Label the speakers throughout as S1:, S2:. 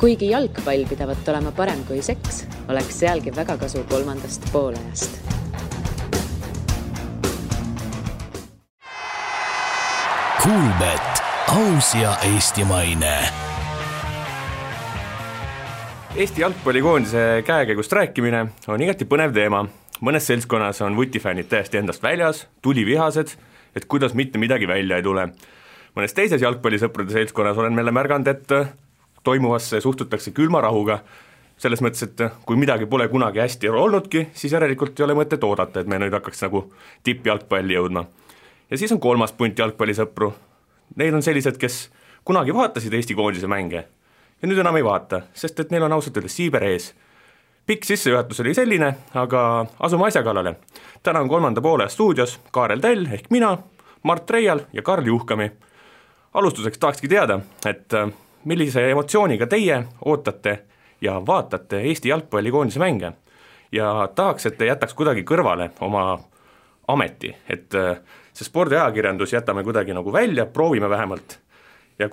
S1: Kuigi jalgpall pidavat olema parem kui seks, oleks sealgi väga kasu kolmandast poolajast.
S2: Kuulbet, aus ja eestimaine.
S3: Eesti jalgpallikoondise käekäigust rääkimine on igati põnev teema. Mõnes seltskonnas on vutifännid täiesti endast väljas, tulivihased, et kuidas mitte midagi välja ei tule. Mõnes teises jalgpallisõprade seltskonnas olen meile märganud, et toimuvasse suhtutakse külma rahuga, selles mõttes, et kui midagi pole kunagi hästi olnudki, siis järelikult ei ole mõtet oodata, et me nüüd hakkaks nagu tippjalgpalli jõudma. Ja siis on kolmas punt jalgpallisõpru. Neil on sellised, kes kunagi vaatasid Eesti koondise mänge ja nüüd enam ei vaata, sest et neil on ausalt öeldes siiber ees. Pikk sissejuhatus oli selline, aga asume asja kallale. Täna on kolmanda poole stuudios Kaarel Tell ehk mina, Mart Reial ja Karl Juhkami. Alustuseks tahakski teada, et millise emotsiooniga teie ootate ja vaatate Eesti jalgpallikoondise mänge ja tahaks, et te jätaks kuidagi kõrvale oma ameti, et see spordiajakirjandus jätame kuidagi nagu välja, proovime vähemalt. Ja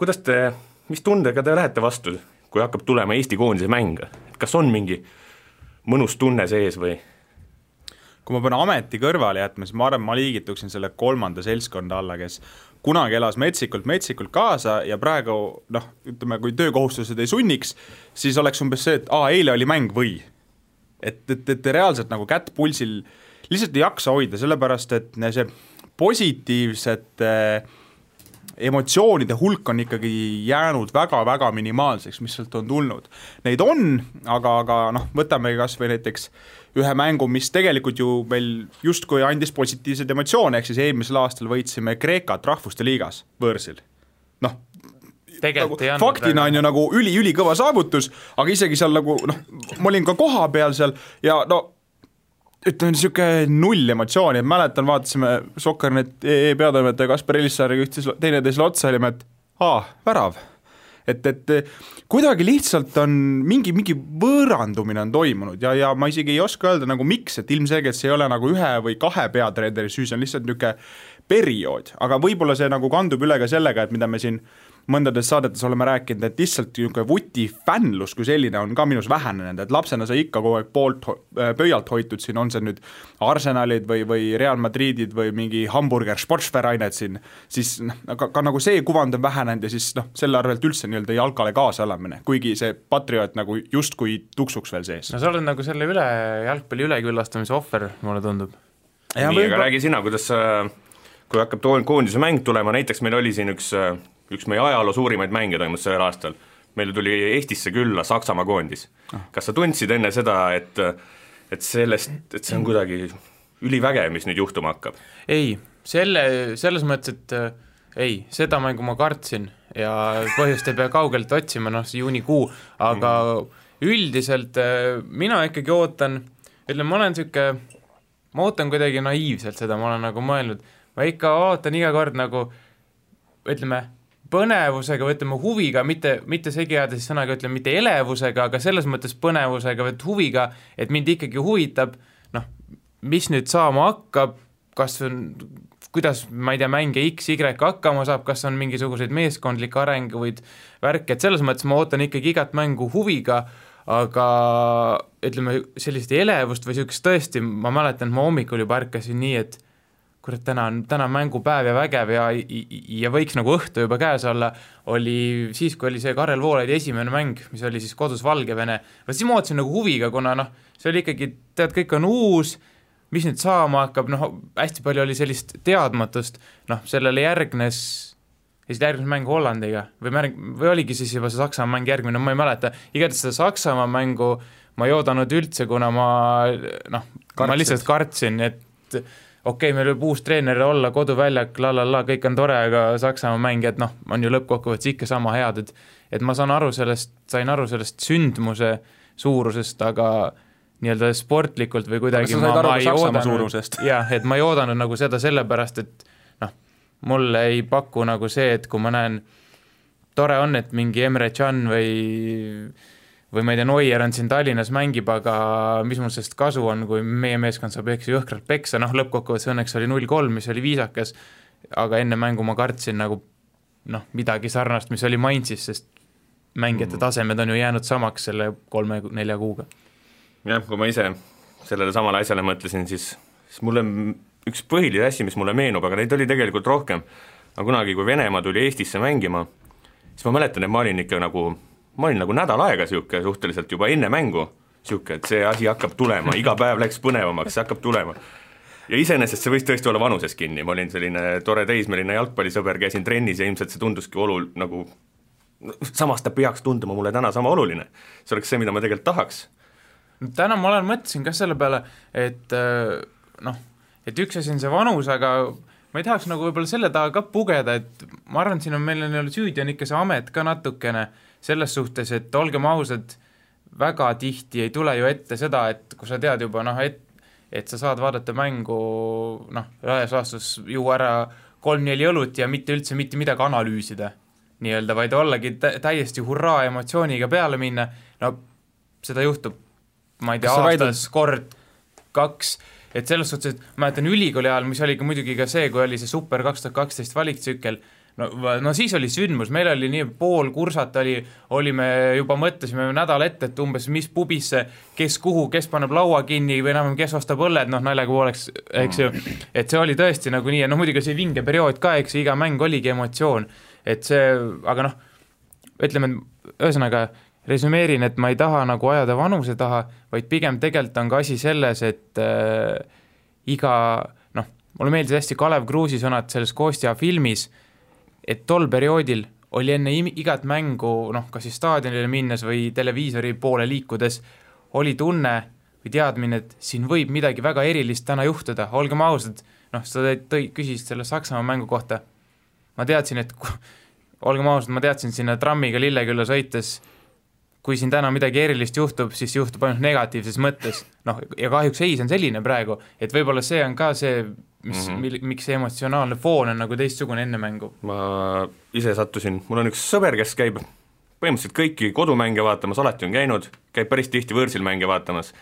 S3: mis tundega te lähete vastu, kui hakkab tulema Eesti koondise mäng? Kas on mingi mõnus tunne sees või?
S4: Kui ma pean ameti kõrvale jätma, siis ma arvan, ma liigituksin selle kolmanda seltskonda alla, kes kunagi elas metsikult kaasa ja praegu, ütleme, kui töökohustused ei sunniks, siis oleks umbes see, et eile oli mäng või. Et reaalselt nagu kätt pulsil lihtsalt ei jaksa hoida, sellepärast, et see positiivsete emotsioonide hulk on ikkagi jäänud väga-väga minimaalseks, mis sealt on tulnud. Neid on, aga võtame kas või näiteks ühe mängu, mis tegelikult ju meil justkui andis positiivsed emotsioone, ehk siis eelmisel aastal võitsime Kreekat rahvuste liigas võõrsil. Faktina on ju nagu üli kõva saavutus, aga isegi seal nagu, ma olin ka koha peal seal ja ütleme niisugune null emotsiooni, et mäletan, vaatasime Sokkernet peatoimetaja Kaspar Elissaariga teineteisele otsa olime, et värav. Et kuidagi lihtsalt on mingi võõrandumine on toimunud ja ma isegi ei oska öelda nagu miks, et ilmselgelt see ei ole nagu ühe või kahe peatreeneri süü, see on lihtsalt niisugune periood, aga võib-olla see nagu kandub üle ka sellega, et mida me siin mõndades saadetes oleme rääkinud, et lihtsalt niisugune vutifännlus kui selline on ka minus vähenenud, et lapsena sa ikka kogu aeg pöialt hoitud siin, on see nüüd Arsenalid või Real Madridid või mingi hamburger sportsverainet siin, siis ka nagu see kuvand on vähenenud ja siis selle arvelt üldse nii-öelda jalkale kaasa elamine, kuigi see patrioot nagu justkui tuksuks veel sees.
S5: No sa oled nagu selle jalgpalli üleküllastamise ohver, mulle tundub.
S3: Nii, aga räägi sina, kuidas kui hakkab koondise mäng tulema, näiteks meil oli siin üks meie ajaloo suurimaid mänge toimus sellel aastal. Meil tuli Eestisse külla Saksamaa koondis. Kas sa tundsid enne seda, et see on kuidagi ülivägev, mis nüüd juhtuma hakkab?
S5: Ei, selles mõttes, et ei, seda mängu ma kartsin ja põhjust ei pea kaugelt otsima, juunikuu, aga üldiselt mina ikkagi ootan, ma ootan kuidagi naiivselt seda, ma olen nagu mõelnud, ma ikka ootan iga kord nagu, põnevusega või huviga, mitte segi ajada siis sõnaga, mitte elevusega, aga selles mõttes põnevusega või huviga, et mind ikkagi huvitab, mis nüüd saama hakkab, kuidas, ma ei tea, mänge X, Y hakkama saab, kas on mingisuguseid meeskondlikke arenguid värke, et selles mõttes ma ootan ikkagi igat mängu huviga, aga sellist elevust või sellist tõesti, ma mäletan, ma hommikul juba ärkasin nii, et kurat, täna on mängupäev ja vägev ja võiks nagu õhtu juba käes olla, oli siis, kui oli see Karel Voolaidi esimene mäng, mis oli siis kodus Valgevene, siis ma ootasin nagu huviga, kuna see oli ikkagi, kõik on uus, mis nüüd saama hakkab, hästi palju oli sellist teadmatust, sellele järgnes mängu Hollandiga või oligi siis juba see Saksamaa mäng järgmine, ma ei mäleta, igatahes seda Saksamaa mängu ma ei oodanud üldse, kuna ma lihtsalt kartsin, et okei, meil võib uus treener olla, koduväljak, kõik on tore, aga Saksamaa mängijad, on ju lõppkokkuvõttes ikka sama head, et ma sain aru sellest sündmuse suurusest, aga nii-öelda sportlikult või kuidagi et ma ei oodanud nagu seda sellepärast, et mulle ei paku nagu see, et kui ma näen, tore on, et mingi Emre Can või ma ei tea, Neuer on siin Tallinnas mängib, aga mis mul sellest kasu on, kui meie meeskond saab jõhkralt peksa, lõppkokkuvõttes õnneks oli 0-3, mis oli viisakas, aga enne mängu ma kartsin nagu midagi sarnast, mis oli Mainzis, sest mängijate tasemed on ju jäänud samaks selle 3-4 kuuga.
S3: Jah, kui ma ise sellele samale asjale mõtlesin, siis mulle üks põhiline asi, mis mulle meenub, aga neid oli tegelikult rohkem, aga kunagi, kui Venemaa tuli Eestisse mängima, siis ma mäletan, et ma olin nagu nädal aega siuke suhteliselt juba enne mängu, siuke, et see asi hakkab tulema, iga päev läks põnevamaks, see hakkab tulema. Ja iseenesest see võis tõesti olla vanuses kinni, ma olin selline tore teismeline jalgpallisõber, käisin trennis ja ilmselt see tunduski nagu samas ta peaks tunduma mulle täna sama oluline. See oleks see, mida ma tegelikult tahaks.
S5: Täna ma mõtlesin ka selle peale, et et üks asi on see vanus, aga ma ei tahaks nagu võib-olla selle taha ka pugeda, et ma arvan, siin on meil süüdi on ikka see amet ka natukene selles suhtes, et olgem ausad, väga tihti ei tule ju ette seda, et kui sa tead juba, et sa saad vaadata mängu, laias laastus juua ära 3-4 õlut ja mitte üldse mitte midagi analüüsida, nii-öelda, vaid ollagi täiesti hurraa emotsiooniga peale minna, seda juhtub, ma ei tea, aastas kord 2, et selles suhtes, et ma mäletan ülikooli ajal, mis oli ka muidugi ka see, kui oli see Super 2012 valiktsükkel, no siis oli sündmus, meil oli nii pool kursat olime juba mõtlesime nädal ette, et umbes mis pubisse, kes kuhu, kes paneb laua kinni või enam kes ostab õlled, naljaga pooleks, eks ju, et see oli tõesti nagu nii, ja muidugi see vinge periood ka, eks iga mäng oligi emotsioon, et see, aga ütleme, ühesõnaga resümeerin, et ma ei taha nagu ajada vanuse taha, vaid pigem tegelikult on ka asi selles, et mulle meeldis hästi Kalev Kruusi sõnad selles Kostja filmis, et tol perioodil oli enne igat mängu, kas siis staadionile minnes või televiisori poole liikudes, oli tunne või teadmine, et siin võib midagi väga erilist täna juhtuda, olgem ausad, sa küsisid selle Saksamaa mängu kohta, ma teadsin, et olgem ausad, ma teadsin sinna trammiga Lillekülla sõites, kui siin täna midagi erilist juhtub, siis juhtub ainult negatiivses mõttes, ja kahjuks see on selline praegu, et võib-olla see on ka see, miks see emotsionaalne foon on nagu teistsugune enne mängu.
S3: Ma ise sattusin, mul on üks sõber, kes käib põhimõtteliselt kõiki kodumänge vaatamas, alati on käinud, käib päris tihti võõrsil mänge vaatamas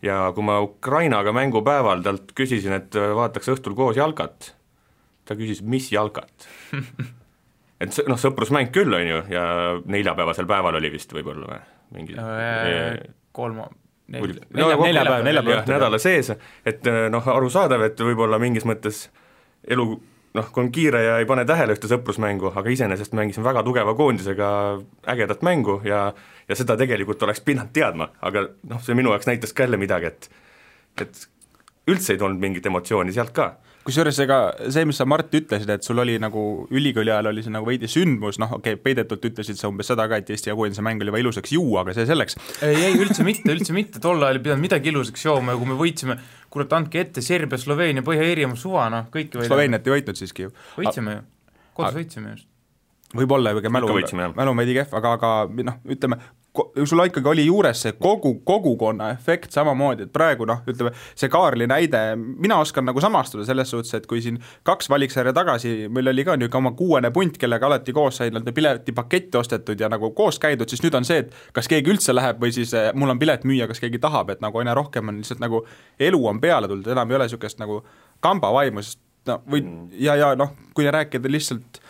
S3: ja kui ma Ukrainaga mängupäeval talt küsisin, et vaataks õhtul koos jalkat, ta küsis, mis jalkat? Et sõprusmäng küll on ju ja neljapäevasel päeval oli vist võib-olla mingi
S5: neljapäev
S3: nädala sees, et arusaadav, et võib-olla mingis mõttes elu, kui on kiire ja ei pane tähele ühte sõprusmängu, aga iseenesest mängisin väga tugeva koondisega ägedat mängu ja seda tegelikult oleks pidanud teadma, aga see minu jaoks näitas ka jälle midagi, et üldse ei tulnud mingit emotsiooni sealt ka.
S4: Kusjuures ega see, mis sa Mart ütlesid, et sul oli nagu ülikooli ajal oli see nagu veidi sündmus, peidetult ütlesid sa umbes seda ka, et Eesti ja koondise mäng oli juba ilusaks juua, aga see selleks.
S5: Ei, üldse mitte, tol ajal ei pidanud midagi ilusaks jooma ja kui me võitsime, kurat, andke ette Serbia, Sloveenia, Põhja-Iirimaa suva, kõiki võidame.
S4: Sloveeniat ei võitnud siiski ju.
S5: Võitsime ju, kodus võitsime just.
S4: Võib-olla mälu veidi kehv, aga ütleme, sul ikkagi oli juures see kogukonna efekt samamoodi, et praegu ütleme, see Kaarli näide, mina oskan nagu samastuda selles suhtes, et kui siin 2 valiksarja tagasi, meil oli ka niisugune oma 6. punt, kellega alati koos sai piletipaketti ostetud ja nagu koos käidud, siis nüüd on see, et kas keegi üldse läheb või siis mul on pilet müüa, kas keegi tahab, et nagu aina rohkem on lihtsalt nagu elu on peale tulnud, enam ei ole niisugust nagu kambavaimu, kui rääkida lihtsalt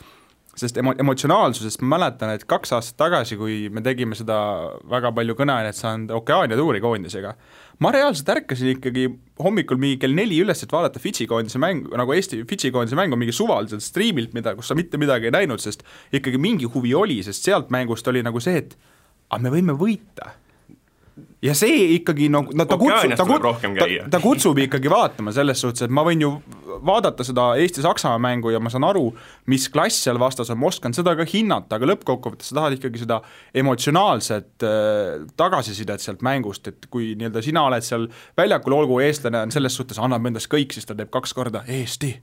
S4: sest emotsionaalsusest ma mäletan, et 2 aastat tagasi, kui me tegime seda väga palju kõneainet saanud Okeaania tuuri koondisega, ma reaalselt ärkasin ikkagi hommikul mingi kell 4 üles, et vaadata Fidži koondise mängu, nagu Eesti Fidži koondise mängu mingi suvaliselt striimilt, kus sa mitte midagi ei näinud, sest ikkagi mingi huvi oli, sest sealt mängust oli nagu see, et me võime võita. Ja see ikkagi, ta kutsub ikkagi vaatama selles suhtes, et ma võin ju vaadata seda Eesti-Saksamaa mängu ja ma saan aru, mis klass seal vastas on, ma oskan seda ka hinnata, aga lõppkokkuvõttes sa tahad ikkagi seda emotsionaalset tagasisidet sealt mängust, et kui nii-öelda sina oled seal väljakul, olgu eestlane on selles suhtes, annab endast kõik, siis ta teeb 2 korda Eesti.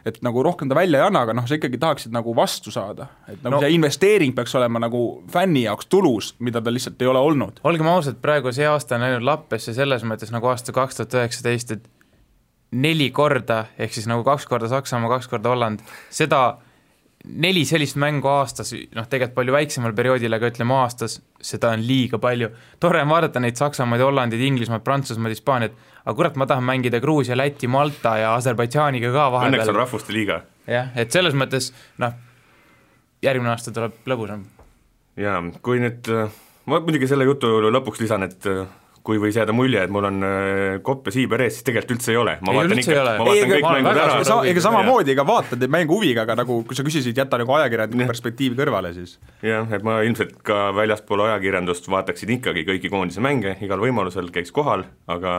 S4: Et nagu rohkem ta välja ei anna, aga sa ikkagi tahaksid nagu vastu saada, et nagu see investeering peaks olema nagu fänni jaoks tulus, mida ta lihtsalt ei ole olnud.
S5: Olgem ausalt, praegu see aasta on läinud lappesse selles mõttes nagu aasta 2019, et 4 korda, ehk siis nagu 2 korda Saksamaa, 2 korda Holland, seda 4 sellist mängu aastas, tegelikult palju väiksemal perioodil, aga ütleme aastas, seda on liiga palju. Tore on vaadata neid Saksamaid, Hollandid, Inglismaad, Prantsusmaad, Hispaaniat, aga kurat, ma tahan mängida Gruusia, Läti, Malta ja Aserbaidžaaniga ka vahepeal.
S3: Õnneks on rahvuste liiga.
S5: Jah, et selles mõttes, järgmine aasta tuleb lõbusam.
S3: jaa, kui nüüd, ma muidugi selle jutu lõpuks lisan, et kui võis jääda mulje, et mul on kopp ja siiber ees, siis tegelikult üldse ei ole. Ma vaatan kõik mängud ära.
S4: Ega samamoodi, ega vaatad mängu huviga, aga nagu kui sa küsisid, jätta nagu ajakirjandusliku perspektiivi kõrvale siis.
S3: Jah, et ma ilmselt ka väljaspool ajakirjandust vaataksin ikkagi kõiki koondise mänge, igal võimalusel käiks kohal, aga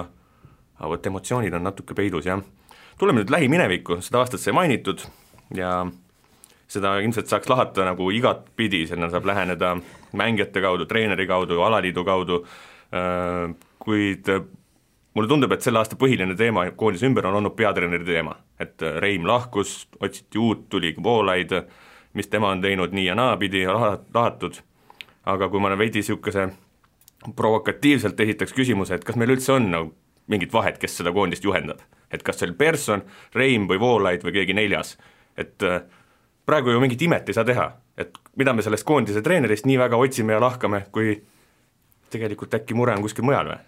S3: võt emotsioonid on natuke peidus, jah. Tuleme nüüd lähiminevikku, seda aastat sai mainitud ja seda ilmselt saaks lahata nagu igat pidi, sinna saab läheneda mängijate kaudu, treeneri kaudu, alaliidu kaudu, kuid mulle tundub, et selle aasta põhiline teema koondise ümber on olnud peatreeneri teema, et Reim lahkus, otsiti uut, tuli Voolaid, mis tema on teinud nii ja naapidi lahatud, aga kui ma veidi niisuguse provokatiivselt esitaks küsimuse, et kas meil üldse on nagu mingit vahet, kes seda koondist juhendab, et kas see oli Persson, Reim või Voolaid või keegi neljas, et praegu ju mingit imet ei saa teha, et mida me sellest koondise treenerist nii väga otsime ja lahkame, kui tegelikult äkki mure on kuskil mujal või?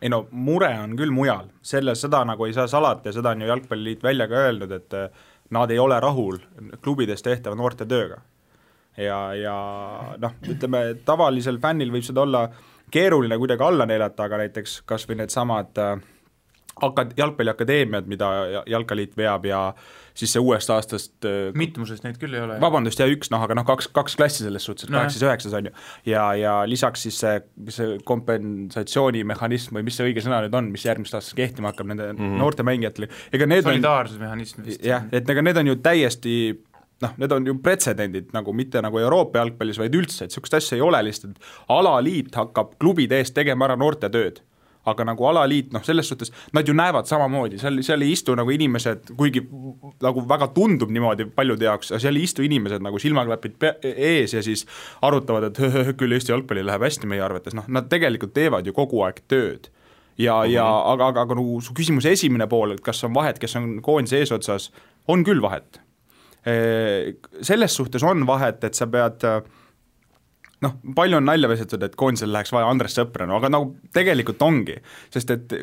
S4: Ei no, mure on küll mujal, seda nagu ei saa salata ja seda on ju Jalgpalliliit välja ka öelnud, et nad ei ole rahul klubides tehtava noorte tööga. Ja noh, ütleme, tavalisel fännil võib seda olla keeruline kuidagi alla neelata, aga näiteks kas või need samad jalgpalliakadeemiad, mida Jalkaliit veab ja siis see uuest aastast
S5: mitmusest neid küll ei ole.
S4: Vabandust, ja üks, aga kaks klassi selles suhtes, 8-9 on ju. Ja lisaks siis see kompensatsioonimehhanism või mis see õige sõna nüüd on, mis järgmist aastast kehtima hakkab nende noorte mängijatele.
S5: Solidaarsusmehhanism vist.
S4: Jah, et need on ju täiesti need on ju pretsedendid, nagu mitte nagu Euroopa jalgpallis, vaid üldse, et sellist asja ei ole lihtsalt, alaliit hakkab klubide eest tegema ära noorte tööd. Aga nagu alaliit, selles suhtes, nad ju näevad samamoodi, seal ei istu nagu inimesed, kuigi nagu väga tundub niimoodi paljude jaoks, seal ei istu inimesed nagu silmaklapid ees ja siis arutavad, et küll Eesti jalgpalli läheb hästi meie arvates, nad tegelikult teevad ju kogu aeg tööd. Aga nagu su küsimuse esimene pool, et kas on vahet, kes on koondise eesotsas, on küll vahet. Selles suhtes on vahet, et sa pead palju on nalja vesetud, et koondisel läheks vaja Andres Sõpra, aga nagu tegelikult ongi, sest et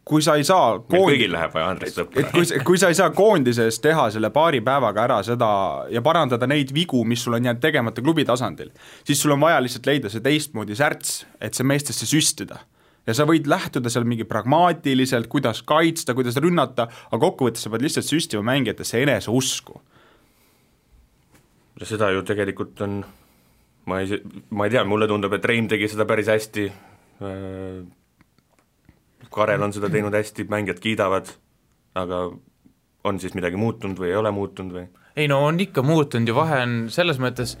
S4: kui sa ei saa
S3: kõigil läheb vaja Andres Sõpra.
S4: Kui sa ei saa koondises teha selle paari päevaga ära seda ja parandada neid vigu, mis sul on jäänud tegemata klubi tasandil, siis sul on vaja lihtsalt leida see teistmoodi särts, et see meestesse süstida. Ja sa võid lähtuda seal mingi pragmaatiliselt, kuidas kaitsta, kuidas rünnata, aga kokkuvõttes sa pead lihtsalt süstima mängijatesse enese usku.
S3: Ja seda ju tegelikult on ma ei tea, mulle tundub, et Reim tegi seda päris hästi, Karel on seda teinud hästi, mängijad kiidavad, aga on siis midagi muutunud või ei ole muutunud või?
S5: Ei no on ikka muutunud ja vahe on selles mõttes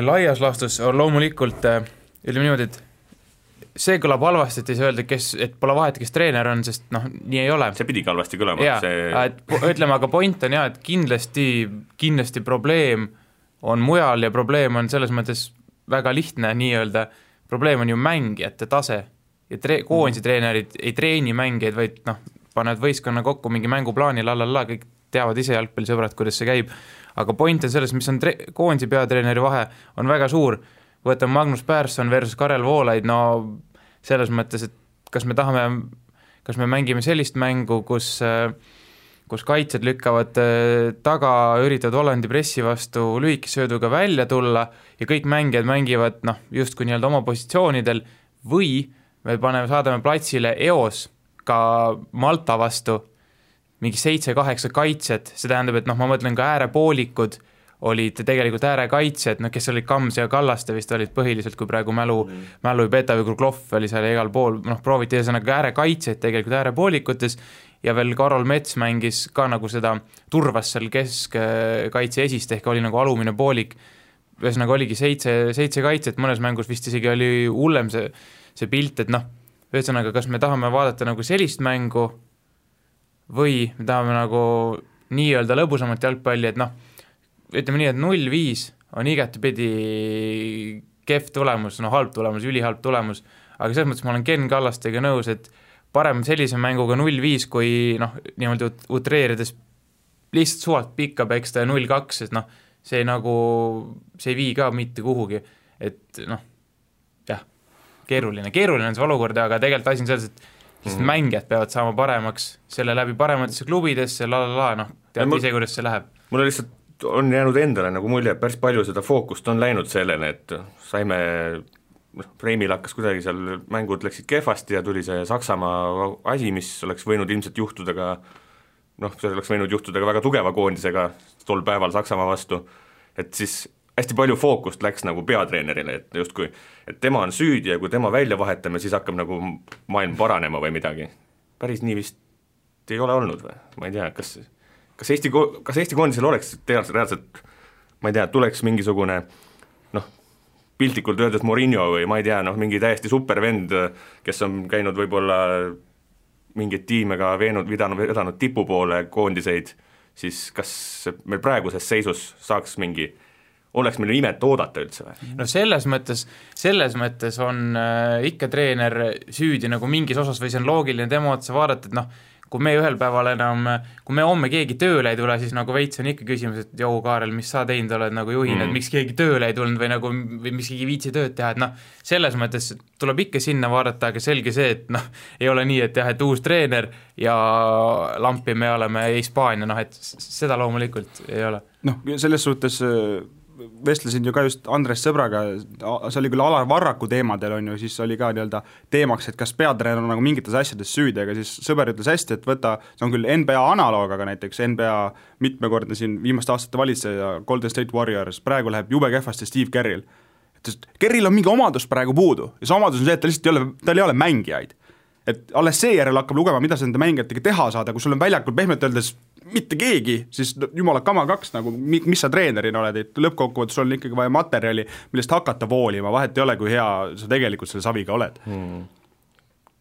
S5: laias laastus on loomulikult, ütleme niimoodi, et see kõlab halvasti, et ei saa öelda, et pole vahet, kes treener on, sest nii ei ole.
S3: See pidigi halvasti kõlama.
S5: Ütleme, aga point on et kindlasti probleem on mujal ja probleem on selles mõttes väga lihtne nii-öelda, probleem on ju mängijate tase ja koondise treenerid ei treeni mängijaid, vaid panevad võistkonna kokku mingi mänguplaani, kõik teavad ise jalgpallisõbrad, kuidas see käib, aga point on selles, mis on koondise peatreeneri vahe, on väga suur, võtame Magnus Persson versus Karel Voolaid, selles mõttes, et kas me mängime sellist mängu, kus kaitsjad lükkavad taga, üritavad Hollandi pressi vastu lühikesööduga välja tulla ja kõik mängijad mängivad justkui nii-öelda oma positsioonidel või me saadame platsile eos ka Malta vastu mingi 7-8 kaitsjad, see tähendab, et ma mõtlen ka äärepoolikud olid tegelikult äärekaitsjad, kes olid Kams ja Kallaste vist olid põhiliselt, kui praegu mälu ei peta või Kruglov oli seal igal pool, prooviti ühesõnaga äärekaitsjad tegelikult äärepoolikutes ja veel Karol Mets mängis ka nagu seda turvas seal keskkaitse esist ehk oli nagu alumine poolik, ühesõnaga oligi 7 kaitset, mõnes mängus vist isegi oli hullem see pilt, et ühesõnaga kas me tahame vaadata nagu sellist mängu või me tahame nagu nii-öelda lõbusamat jalgpalli, et ütleme nii, et 0-5 on igatepidi kehv tulemus, halb tulemus, ülihalb tulemus, aga selles mõttes ma olen Ken Kallastega nõus, et parem sellise mänguga 0-5, kui niimoodi utreerides lihtsalt suvalt pikka peksta ja 0-2, sest see ei vii ka mitte kuhugi, et keeruline on see olukord, aga tegelikult asi on selles, et mängijad peavad saama paremaks, selle läbi parematesse klubidesse, tead ise, kuidas see läheb.
S3: Mulle lihtsalt on jäänud endale nagu mulje, et päris palju seda fookust on läinud sellele, et saime, Reimil hakkas kuidagi seal, mängud läksid kehvasti ja tuli see Saksamaa asi, mis oleks võinud ilmselt juhtuda ka, see oleks võinud juhtuda ka väga tugeva koondisega tol päeval Saksamaa vastu, et siis hästi palju fookust läks nagu peatreenerile, et justkui, et tema on süüdi ja kui tema välja vahetame, siis hakkab nagu maailm paranema või midagi. Päris nii vist ei ole olnud või? Ma ei tea, kas Eesti koondisel oleks reaalselt, ma ei tea, tuleks mingisugune, piltlikult öeldes Mourinho või ma ei tea, mingi täiesti supervend, kes on käinud võib-olla mingeid tiime ka vedanud tipu poole koondiseid, siis kas meil praeguses seisus saaks oleks meil imet oodata üldse või?
S5: No selles mõttes on ikka treener süüdi nagu mingis osas või see on loogiline tema otsa vaadata, et kui me ühel päeval enam, kui me homme keegi tööle ei tule, siis nagu veits on ikka küsimus, et jou, Kaarel, mis sa teinud oled nagu juhina, et miks keegi tööle ei tulnud või miks keegi viitsi tööd teha, et selles mõttes tuleb ikka sinna vaadata, aga selge see, et ei ole nii, et jah, et uus treener ja lampi me oleme Hispaania, et seda loomulikult ei ole.
S4: Selles suhtes vestlesin ju ka just Andres sõbraga, see oli küll Alar Varraku teemadel on ju, siis oli ka nii-öelda teemaks, et kas peatreener on nagu mingites asjades süüdi, aga siis sõber ütles hästi, et võta, see on küll NBA analoog, aga näiteks NBA mitmekordne siin viimaste aastate valitseja Golden State Warriors, praegu läheb jube kehvasti Steve Kerril. Kerril on mingi omadus praegu puudu ja see omadus on see, et tal ei ole mängijaid. Et alles seejärel hakkab lugema, mida sa nende mängijatega teha saada, kui sul on väljakul pehmelt öeldes mitte keegi, siis jumala kama kaks, nagu mis sa treenerina oled, et lõppkokkuvõttes sul on ikkagi vaja materjali, millest hakata voolima, vahet ei ole, kui hea sa tegelikult selle saviga oled.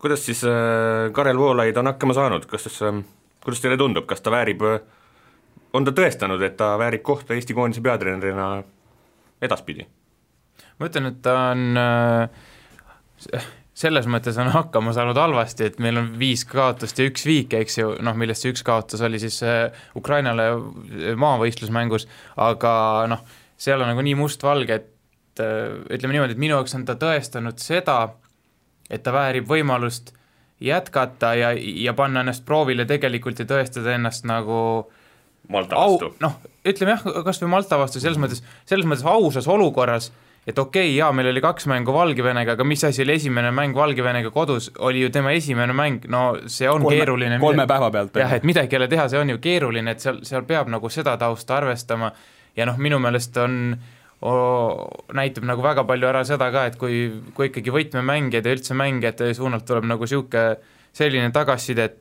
S3: Kuidas siis Karel Voolaid on hakkama saanud, kuidas teile tundub, kas ta väärib, on ta tõestanud, et ta väärib kohta Eesti koondise peatreenerina edaspidi?
S5: Ma ütlen, et ta on selles mõttes on hakkama saanud halvasti, et meil on 5 kaotust ja 1 viik, eks ju, millest see 1 kaotus oli siis Ukrainale maavõistlusmängus, aga seal on nagu nii mustvalge, et ütleme niimoodi, et minu jaoks on ta tõestanud seda, et ta väärib võimalust jätkata ja panna ennast proovile tegelikult ja tõestada ennast nagu
S3: Malta vastu.
S5: Ütleme jah, kas või Malta vastu, selles mõttes ausas olukorras, et okei, jaa, meil oli 2 mängu Valgevenega, aga mis asi oli esimene mäng Valgevenega kodus, oli ju tema esimene mäng, see on keeruline.
S4: 3 päeva pealt.
S5: Jah, et midagi ei ole teha, see on ju keeruline, et seal peab nagu seda tausta arvestama ja minu meelest näitab nagu väga palju ära seda ka, et kui ikkagi võtmemängijad ja üldse mängijate suunalt tuleb nagu selline tagasiside, et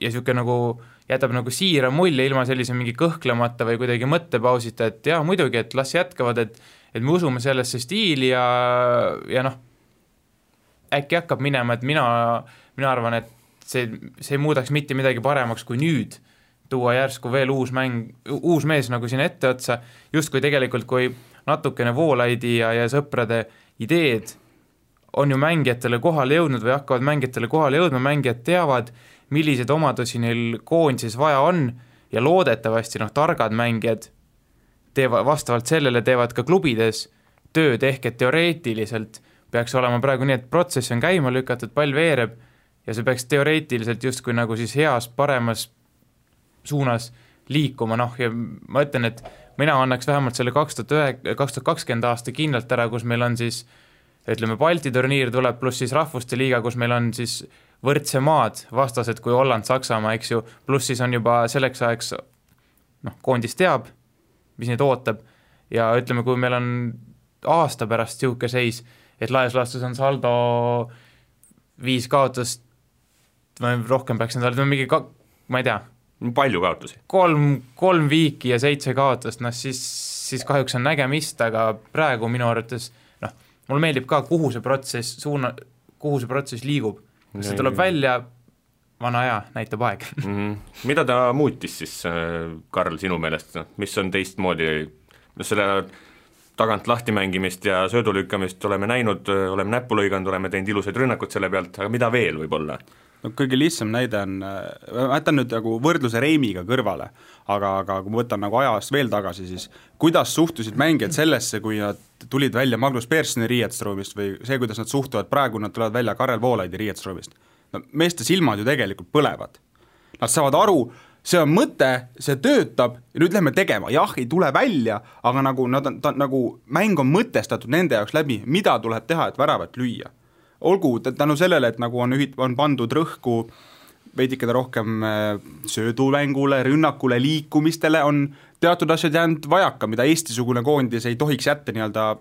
S5: ja siuke nagu jätab nagu siira mulje ilma sellise mingi kõhklemata või kuidagi mõttepausita, et jah, muidugi, et las jätkavad, et me usume sellesse stiili ja äkki hakkab minema, et mina arvan, et see ei muudaks mitte midagi paremaks kui nüüd tuua järsku veel uus mees nagu siin ette otsa, justkui tegelikult, kui natukene Voolaidi ja sõprade ideed on ju mängijatele kohale jõudnud või hakkavad mängijatele kohale jõudma, mängijad teavad, millised omadusi neil koondises vaja on ja loodetavasti targad mängijad vastavalt sellele teevad ka klubides tööd, ehk et teoreetiliselt peaks olema praegu nii, et protsess on käima lükatud, pall veereb ja see peaks teoreetiliselt justkui nagu siis heas, paremas suunas liikuma, ja ma ütlen, et mina annaks vähemalt selle 2020 aasta kindlalt ära, kus meil on siis, ütleme, Balti turniir tuleb, pluss siis rahvuste liiga, kus meil on siis võrdse maad vastased kui Holland, Saksamaa, eks ju, pluss siis on juba selleks ajaks, koondis teab, mis neid ootab ja ütleme, kui meil on aasta pärast siuke seis, et laias laastus on saldo 5 kaotust, rohkem peaks endale, mingi, ma ei tea,
S3: palju kaotusi?
S5: 3 viiki ja 7 kaotust, siis kahjuks on nägemist, aga praegu minu arvates, mulle meeldib ka, kuhu see protsess liigub. See tuleb välja, vana aja, näitab aeg.
S3: Mida ta muutis siis, Karl, sinu meelest? Mis on teistmoodi? Selle tagant lahti mängimist ja söödulükkamist oleme näinud, oleme näppu lõiganud, oleme teinud ilusaid rünnakud selle pealt, aga mida veel võib olla?
S4: Kõige lihtsam näide on, ma jätan nüüd nagu võrdluse Reimiga kõrvale, aga kui ma võtan nagu ajast veel tagasi, siis kuidas suhtusid mängijad sellesse, kui nad tulid välja Magnus Personi riietusruumist või see, kuidas nad suhtuvad praegu, nad tulevad välja Karel Voolaidi riietusruumist. Meeste silmad ju tegelikult põlevad. Nad saavad aru, see on mõte, see töötab ja nüüd lähme tegema, jah, ei tule välja, aga nagu, nagu mäng on mõtestatud nende jaoks läbi, mida tuleb teha, et väravat lüüa. Olgu tänu sellele, et nagu on pandud rõhku veidikene rohkem söödumängule, rünnakule, liikumistele, on teatud asjad jäänud vajaka, mida Eesti-sugune koondis ei tohiks jätta nii-öelda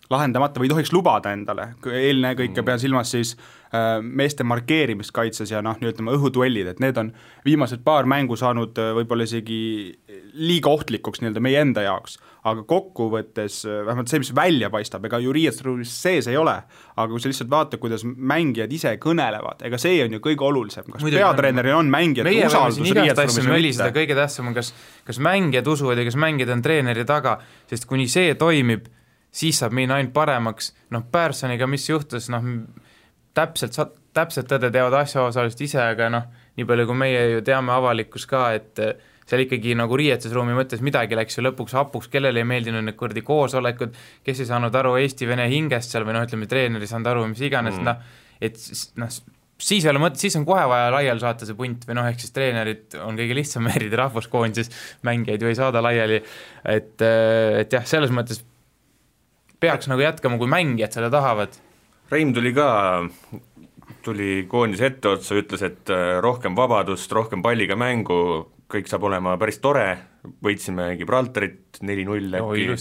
S4: lahendamata või ei tohiks lubada endale. Eelne kõike pean silmas siis meeste markeerimist kaitses ja ütleme õhuduellid, et need on viimased paar mängu saanud võib-olla isegi liiga ohtlikuks nii-öelda meie enda jaoks, aga kokkuvõttes vähemalt see, mis välja paistab, ega ju riietusruumis sees ei ole, aga kui sa lihtsalt vaatad, kuidas mängijad ise kõnelevad, ega see on ju kõige olulisem, kas peatreeneril on mängijad usaldus riietusruumis või mitte.
S5: Kõige tähtsam on, kas mängijad usuvad ja kas mängijad on treeneri taga, sest kuni see toimib, siis saab minna ainult paremaks. Pärsoniga mis juhtus, täpselt tõde teavad asjaosalised ise, aga nii palju kui meie ju teame avalikkus ka, et seal ikkagi nagu riietusruumi mõttes midagi läks ju lõpuks hapuks, kellele ei meeldinud need kordi koosolekud, kes ei saanud aru Eesti-Vene hingest seal või ütleme, treener ei saanud aru, mis iganes, siis ei ole mõte, siis on kohe vaja laiali saata see punt või ehk siis treenerid on kõige lihtsam erida rahvuskoondises, mängijaid ju ei saada laiali, et jah, selles mõttes peaks nagu jätkama, kui mängijad selle tahavad.
S3: Reim tuli koondis etteotsa, ütles, et rohkem vabadust, rohkem palliga mängu, kõik saab olema päris tore, võitsime Gibraltarit 4-0 äkki,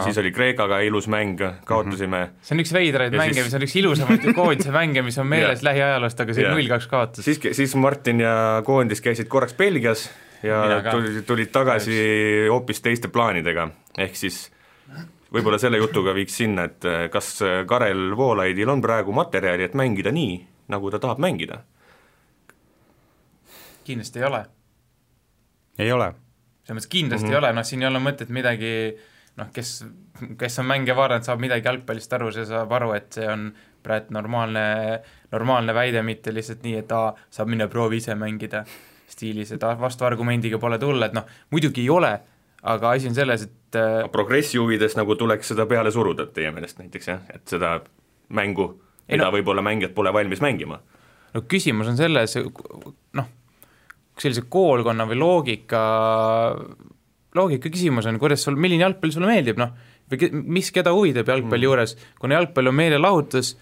S3: siis oli Kreekaga ilus mäng, kaotasime.
S5: See on üks veidraid mänge, mis on üks ilusamaid koondise mänge, mis on meeles lähiajaloost, aga see 0-2 kaotas.
S3: Siis Martin ja koondis käisid korraks Belgias ja tulid tagasi hoopis teiste plaanidega, ehk siis võib-olla selle jutuga viiks sinna, et kas Karel Voolaidil on praegu materjali, et mängida nii, nagu ta tahab mängida?
S5: Kindlasti ei ole.
S4: Ei ole.
S5: See mõttes kindlasti ei ole, siin ei ole mõtet midagi, kes on mänge vaadanud, saab midagi jalgpallist aru, see saab aru, et see on praegu normaalne väide, mitte lihtsalt nii, et saab minna proovi ise mängida stiilis, et vastu argumendiga pole tulla, et muidugi ei ole, aga asi on selles, et
S3: progressi huvides nagu tuleks seda peale suruda teie meelest näiteks, jah? Et seda mängu, mida võib-olla mängijad pole valmis mängima.
S5: Küsimus on selles, sellise koolkonna või loogika küsimus on, kuidas milline jalgpall sulle meeldib, või mis keda huvidab jalgpalli juures, kuna jalgpall on meelelahutus,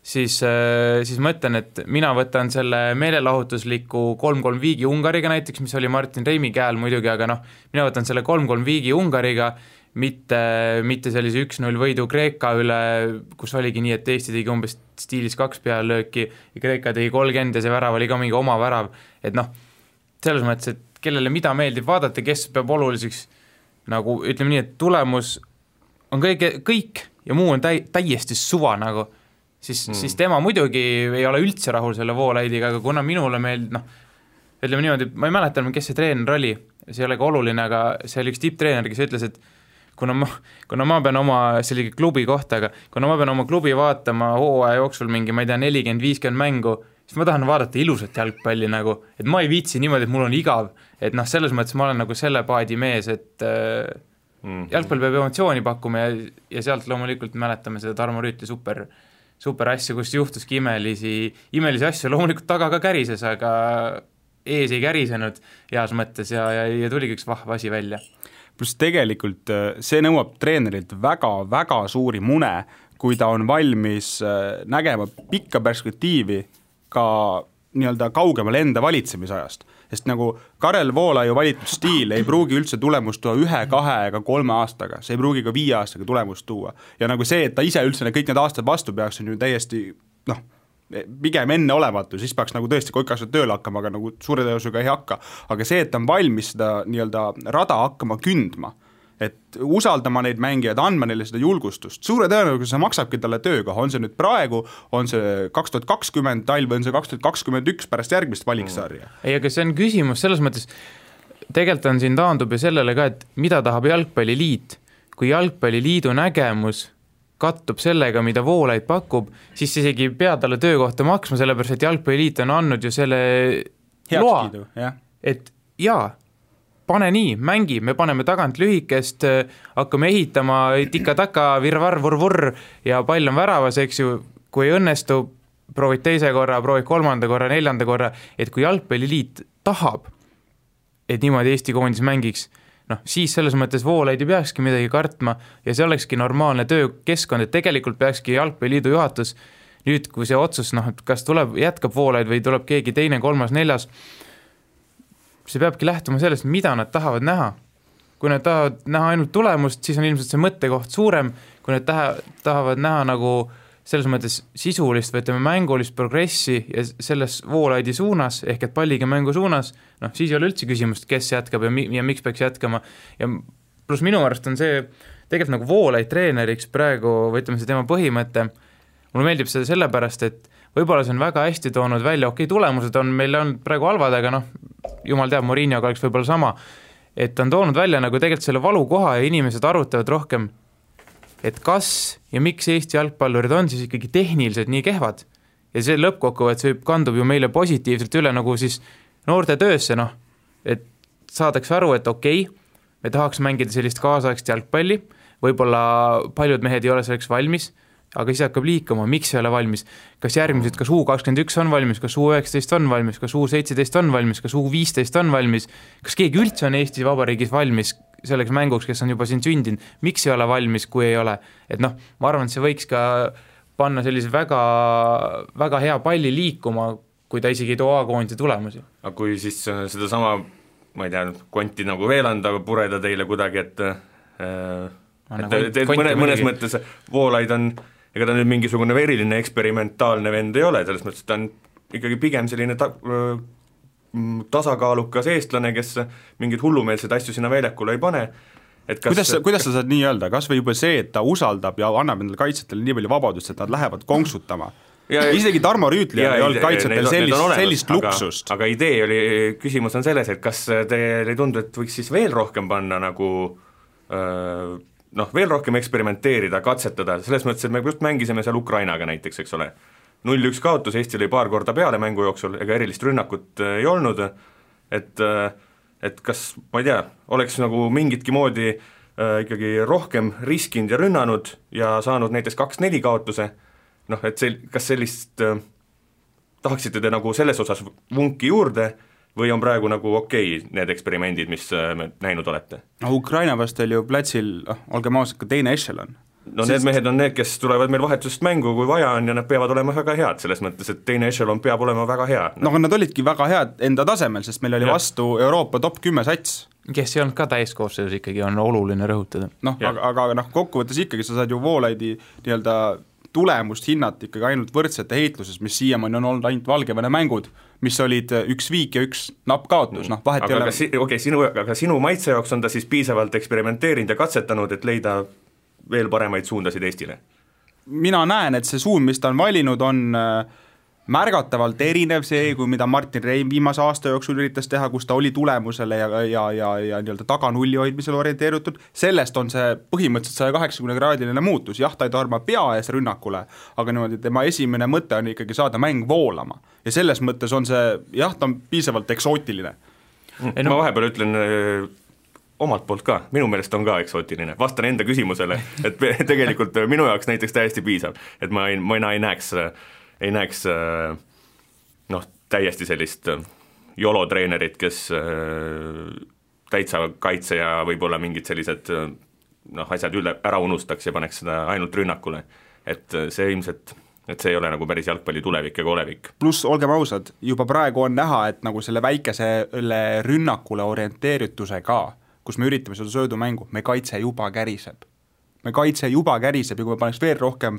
S5: siis ma ütlen, et mina võtan selle meelelahutusliku 3-3 viigi Ungariga näiteks, mis oli Martin Reimi käel muidugi, aga mina võtan selle 3-3 viigi Ungariga, mitte sellise 1-0 võidu Kreeka üle, kus oligi nii, et Eesti tegi umbes stiilis 2 pealööki ja Kreeka tegi 30 ja see värav oli ka mingi oma värav, et selles mõttes, et kellele mida meeldib vaadata, kes peab oluliseks, nagu ütleme nii, et tulemus on kõik ja muu on täiesti suva siis tema muidugi ei ole üldse rahul selle Voolaidiga, aga kuna minule ütleme niimoodi, ma ei mäleta, kes see treener oli, see ei ole ka oluline, aga see oli üks tipptreener, kes ütles, et kuna ma pean oma sellise klubi kohta, aga kuna ma pean oma klubi vaatama hooaja jooksul mingi, ma ei tea, 40-50 mängu, siis ma tahan vaadata ilusat jalgpalli et ma ei viitsi niimoodi, et mul on igav, et selles mõttes ma olen selle paadi mees, et jalgpall peab emotsiooni pakkuma ja sealt loomulikult mäletame seda Tarmo Rüütli super asju, kus juhtuski imelisi asju, loomulikult taga ka kärises, aga ees ei kärisenud heas mõttes ja tuligi üks vahva asi välja.
S4: Plus tegelikult see nõuab treenerilt väga suuri mune, kui ta on valmis nägema pikka perspektiivi ka nii-öelda kaugemal enda valitsemisajast, sest nagu Karel Voolaiu valitud stiil ei pruugi üldse tulemust tuua 1, 2 ega 3 aastaga, see ei pruugi ka 5 aastaga tulemust tuua ja nagu see, et ta ise üldse kõik need aastad vastu peaks, on ju täiesti pigem enne olematu, siis peaks nagu tõesti kõik asjad tööle hakkama, aga nagu suure tõusuga ei hakka, aga see, et ta on valmis seda nii-öelda rada hakkama kündma, et usaldama neid mängijaid, andma neile seda julgustust, suure tõenäosusega see maksabki talle töökoha, on see nüüd praegu, on see 2020 talv, on see 2021 pärast järgmist valiksarja.
S5: Ei, aga see on küsimus selles mõttes, tegelikult on siin taandub ju sellele ka, et mida tahab jalgpalliliit, kui jalgpalliliidu nägemus kattub sellega, mida Voolaid pakub, siis isegi pea talle töökohta maksma, sellepärast, et jalgpalliliit on andnud ju selle
S4: heakskiidu,
S5: loa, et jaa, pane nii, mängi, me paneme tagant lühikest, hakkame ehitama tika-taka, virvar-vurvur ja pall on väravas, eks ju, kui ei õnnestu, proovid teise korra, proovid 3. korra, 4. korra, et kui jalgpalliliit tahab, et niimoodi Eesti koondis mängiks, noh, siis selles mõttes Voolaid ei peakski midagi kartma ja see olekski normaalne töökeskkond, et tegelikult peakski Jalgpalliliidu juhatus nüüd, kui see otsus, noh, et kas jätkab Voolaid või tuleb keegi teine, kolmas, neljas, see peabki lähtuma sellest, mida nad tahavad näha. Kui nad tahavad näha ainult tulemust, siis on ilmselt see mõttekoht suurem, kui nad tahavad näha nagu selles mõttes sisulist või ütleme mängulist progressi ja selles Voolaidi suunas, ehk et palliga mängu suunas, noh, siis ei ole üldse küsimust, kes jätkab ja miks peaks jätkama. Ja pluss minu arust on see tegelikult nagu Voolaid treeneriks praegu, või ütleme see tema põhimõte, mulle meeldib seda sellepärast, et võib-olla see on väga hästi toonud välja, tulemused on meil on praegu halvad, aga noh, jumal teab, Mourinhoga oleks võib-olla sama, et on toonud välja nagu tegelikult selle valukoha ja inimesed arutavad rohkem, et kas ja miks Eesti jalgpallurid on siis ikkagi tehniliselt nii kehvad. Ja see lõppkokkuvõttes võib kandub ju meile positiivselt üle nagu siis noorte töösse, noh, et saadakse aru, et okei, me tahaks mängida sellist kaasaegst jalgpalli, võib-olla paljud mehed ei ole selleks valmis, aga siis hakkab liikuma, miks ei ole valmis, kas järgmised, kas U21 on valmis, kas U19 on valmis, kas U17 on valmis, kas U15 on valmis, kas keegi üldse on Eesti Vabariigis valmis selleks mänguks, kes on juba siin sündinud, miks ei ole valmis, kui ei ole, et noh, ma arvan, et see võiks ka panna sellise väga, väga hea palli liikuma, kui ta isegi ei too A-koondise tulemusi.
S3: Aga kui siis seda sama, ma ei tea, konti nagu veel anda, pureda teile kuidagi, et mõnes mõttes Voolaid on, ega ta nüüd mingisugune veriline eksperimentaalne vend ei ole, selles mõttes ta on ikkagi pigem selline tasakaalukas eestlane, kes mingeid hullumeelseid asju sinna väljakule ei pane. Et
S4: kuidas sa saad nii öelda, kas või juba see, et ta usaldab ja annab endale kaitsjatele nii palju vabadust, et nad lähevad konksutama? Isegi Tarmo Rüütli ei olnud kaitsetel sellist luksust.
S3: Aga idee oli, küsimus on selles, et kas teil ei tundu, et võiks siis veel rohkem panna nagu veel rohkem eksperimenteerida, katsetada, selles mõttes, et me just mängisime seal Ukrainaga näiteks, eks ole. 0-1 kaotus, Eesti oli paar korda peale mängu jooksul, ega erilist rünnakut ei olnud, et kas, ma ei tea, oleks nagu mingitki moodi ikkagi rohkem riskinud ja rünnanud ja saanud näiteks 2-4 kaotuse, noh, et kas sellist tahaksite te nagu selles osas vunki juurde või on praegu nagu okei need eksperimendid, mis me näinud olete?
S4: No Ukraina vastu oli ju plätsil, olgem ausad, ka teine echelon.
S3: No need mehed on need, kes tulevad meil vahetusest mängu, kui vaja on ja nad peavad olema väga head, selles mõttes, et teine echelon peab olema väga hea.
S4: No aga nad olidki väga head enda tasemel, sest meil oli vastu Euroopa top 10 sats.
S5: Kes ei olnud ka täiskoosseisus ikkagi on oluline rõhutada.
S4: Noh, aga kokkuvõttes ikkagi sa saad ju Voolaidi nii-öelda tulemust hinnata ikkagi ainult võrdsete heitluses, mis siiamaani on olnud ainult Valgevene mängud, mis olid 1 viik ja 1 napp kaotus, noh vahet ei ole.
S3: Aga sinu maitse jaoks on ta siis piisavalt eksperimenteerinud ja katsetanud, et leida veel paremaid suundasid Eestile?
S4: Mina näen, et see suund, mis ta on valinud, on märgatavalt erinev see, kui mida Martin Reim viimase aasta jooksul üritas teha, kus ta oli tulemusele ja nii-öelda taganulli hoidmisele orienteerutud, sellest on see põhimõtteliselt 180-kraadiline muutus, jah, ta ei torma pea ees rünnakule, aga niimoodi tema esimene mõte on ikkagi saada mäng voolama ja selles mõttes on see, jah, ta on piisavalt eksootiline.
S3: Ma vahepeal ütlen omalt poolt ka, minu meelest on ka eksootiline, vastan enda küsimusele, et tegelikult minu jaoks näiteks täiesti piisav, et ma ei näeks täiesti sellist jolo-treenerit, kes täitsa kaitse ja võib-olla mingid sellised asjad ära unustaks ja paneks seda ainult rünnakule, et see ilmselt et see ei ole nagu päris jalgpalli tulevik ega olevik.
S4: Pluss, olgem ausad, juba praegu on näha, et nagu selle väikesele rünnakule orienteeritusega, kus me üritame seda söödumängu, me kaitse juba käriseb ja kui me paneks veel rohkem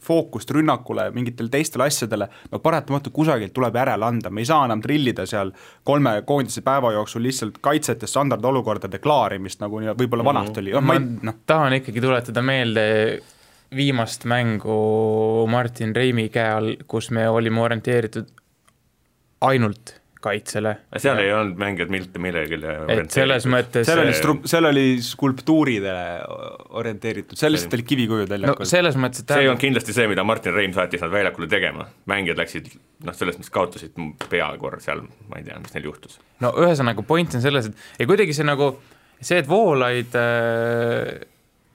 S4: fookust rünnakule mingitele teistele asjadele, no paratamatu kusagilt tuleb järele anda, me ei saa enam trillida seal 3 koondise päeva jooksul lihtsalt kaitsete standardolukordade klaarimist, nagu võib-olla vanast oli.
S5: Tahan ikkagi tuletada meelde viimast mängu Martin Reimi käe all, kus me olime orienteeritud ainult kaitsele.
S3: Seal ei olnud mängijad millelegi
S5: orienteeritud.
S4: Seal oli skulptuuridele orienteeritud, seal lihtsalt oli kivikujud väljakul.
S3: See on kindlasti see, mida Martin Reim saatis nad väljakule tegema. Mängijad läksid, selles mõttes kaotasid peakord seal, ma ei tea, mis neil juhtus.
S5: No ühesõnaga point on selles, et kuidagi see, et Voolaid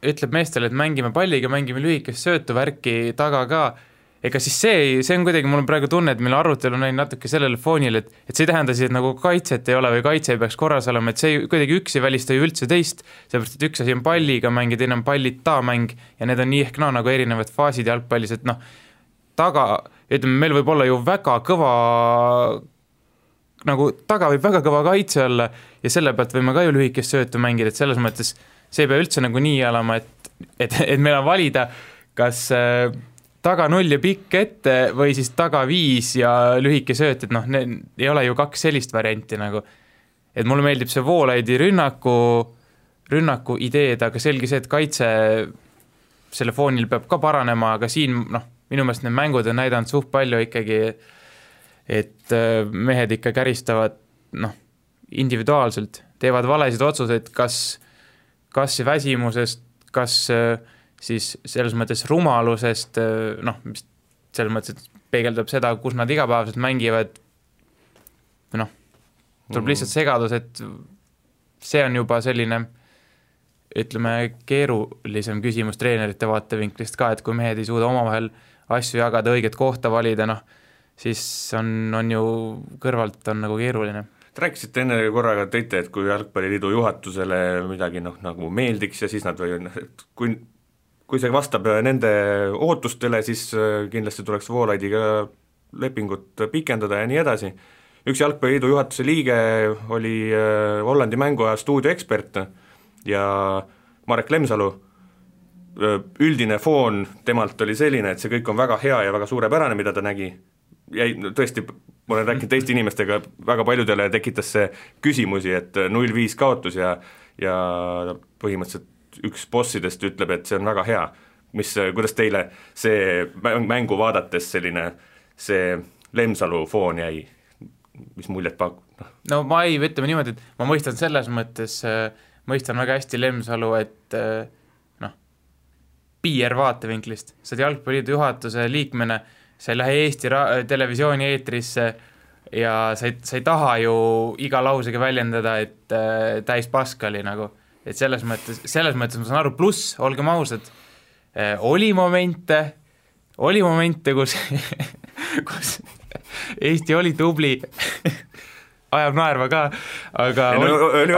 S5: ütleb meestele, et mängime palliga, mängime lühikest söötu värki taga ka, ega siis see on kuidagi, mul on praegu tunne, et meil arutelu on natuke sellele foonil, et see ei tähenda siis, et nagu kaitset ei ole või kaitse ei peaks korras olema, et see kuidagi üks ei välista ju üldse teist, sellepärast, et üks asi on palliga mäng ja teine on pallita mäng ja need on nii ehk nagu erinevad faasid jalgpallis, et ütleme, meil võib olla ju väga kõva, nagu taga võib väga kõva kaitse olla ja selle pealt võime ka ju lühikest söötu mängida, et selles mõttes see ei pea üldse nagu nii olema, et meil on valida, kas taga 0 ja pikk ette või siis taga 5 ja lühike sööt, et ei ole ju 2 sellist varianti nagu. Et mulle meeldib see Voolaidi rünnaku ideed, aga selge see, et kaitse selle foonil peab ka paranema, aga siin minu meelest need mängud on näidanud suht palju ikkagi, et mehed ikka käristavad individuaalselt, teevad valesid otsuseid, kas väsimusest, kas siis selles mõttes rumalusest, mis selles mõttes peegeldab seda, kus nad igapäevaselt mängivad, tuleb lihtsalt segadus, et see on juba selline, ütleme, keerulisem küsimus treenerite vaatevinklist ka, et kui mehed ei suuda omavahel asju jagada, õiget kohta valida, siis on ju kõrvalt on nagu keeruline.
S3: Te rääkisite enne korraga tõite, et kui Jalgpalliliidu juhatusele midagi nagu meeldiks ja siis nad kui see vastab nende ootustele, siis kindlasti tuleks Voolaidiga lepingut pikendada ja nii edasi. Üks Jalgpalliliidu juhatuse liige oli Hollandi mänguaja stuudioekspert ja Marek Lemsalu, üldine foon temalt oli selline, et see kõik on väga hea ja väga suurepärane, mida ta nägi. Tõesti, ma olen rääkinud teiste inimestega, väga paljudele tekitas see küsimusi, et 0-5 kaotus ja põhimõtteliselt üks bossidest ütleb, et see on väga hea. Kuidas teile see mängu vaadates selline see Lemsalu foon jäi, mis muljet pakub?
S5: No ma ei, ütleme niimoodi, et ma mõistan selles mõttes, mõistan väga hästi Lemsalu, et PR vaatevinklist, sa oled Jalgpalliliidu juhatuse liikmena, sa ei lähe Eesti televisiooni eetrisse ja sa ei taha ju iga lausega väljendada, et täis paskali nagu, et selles mõttes ma saan aru, pluss, olgem ausad, oli momente, kus Eesti oli tubli, ajab naerva ka, aga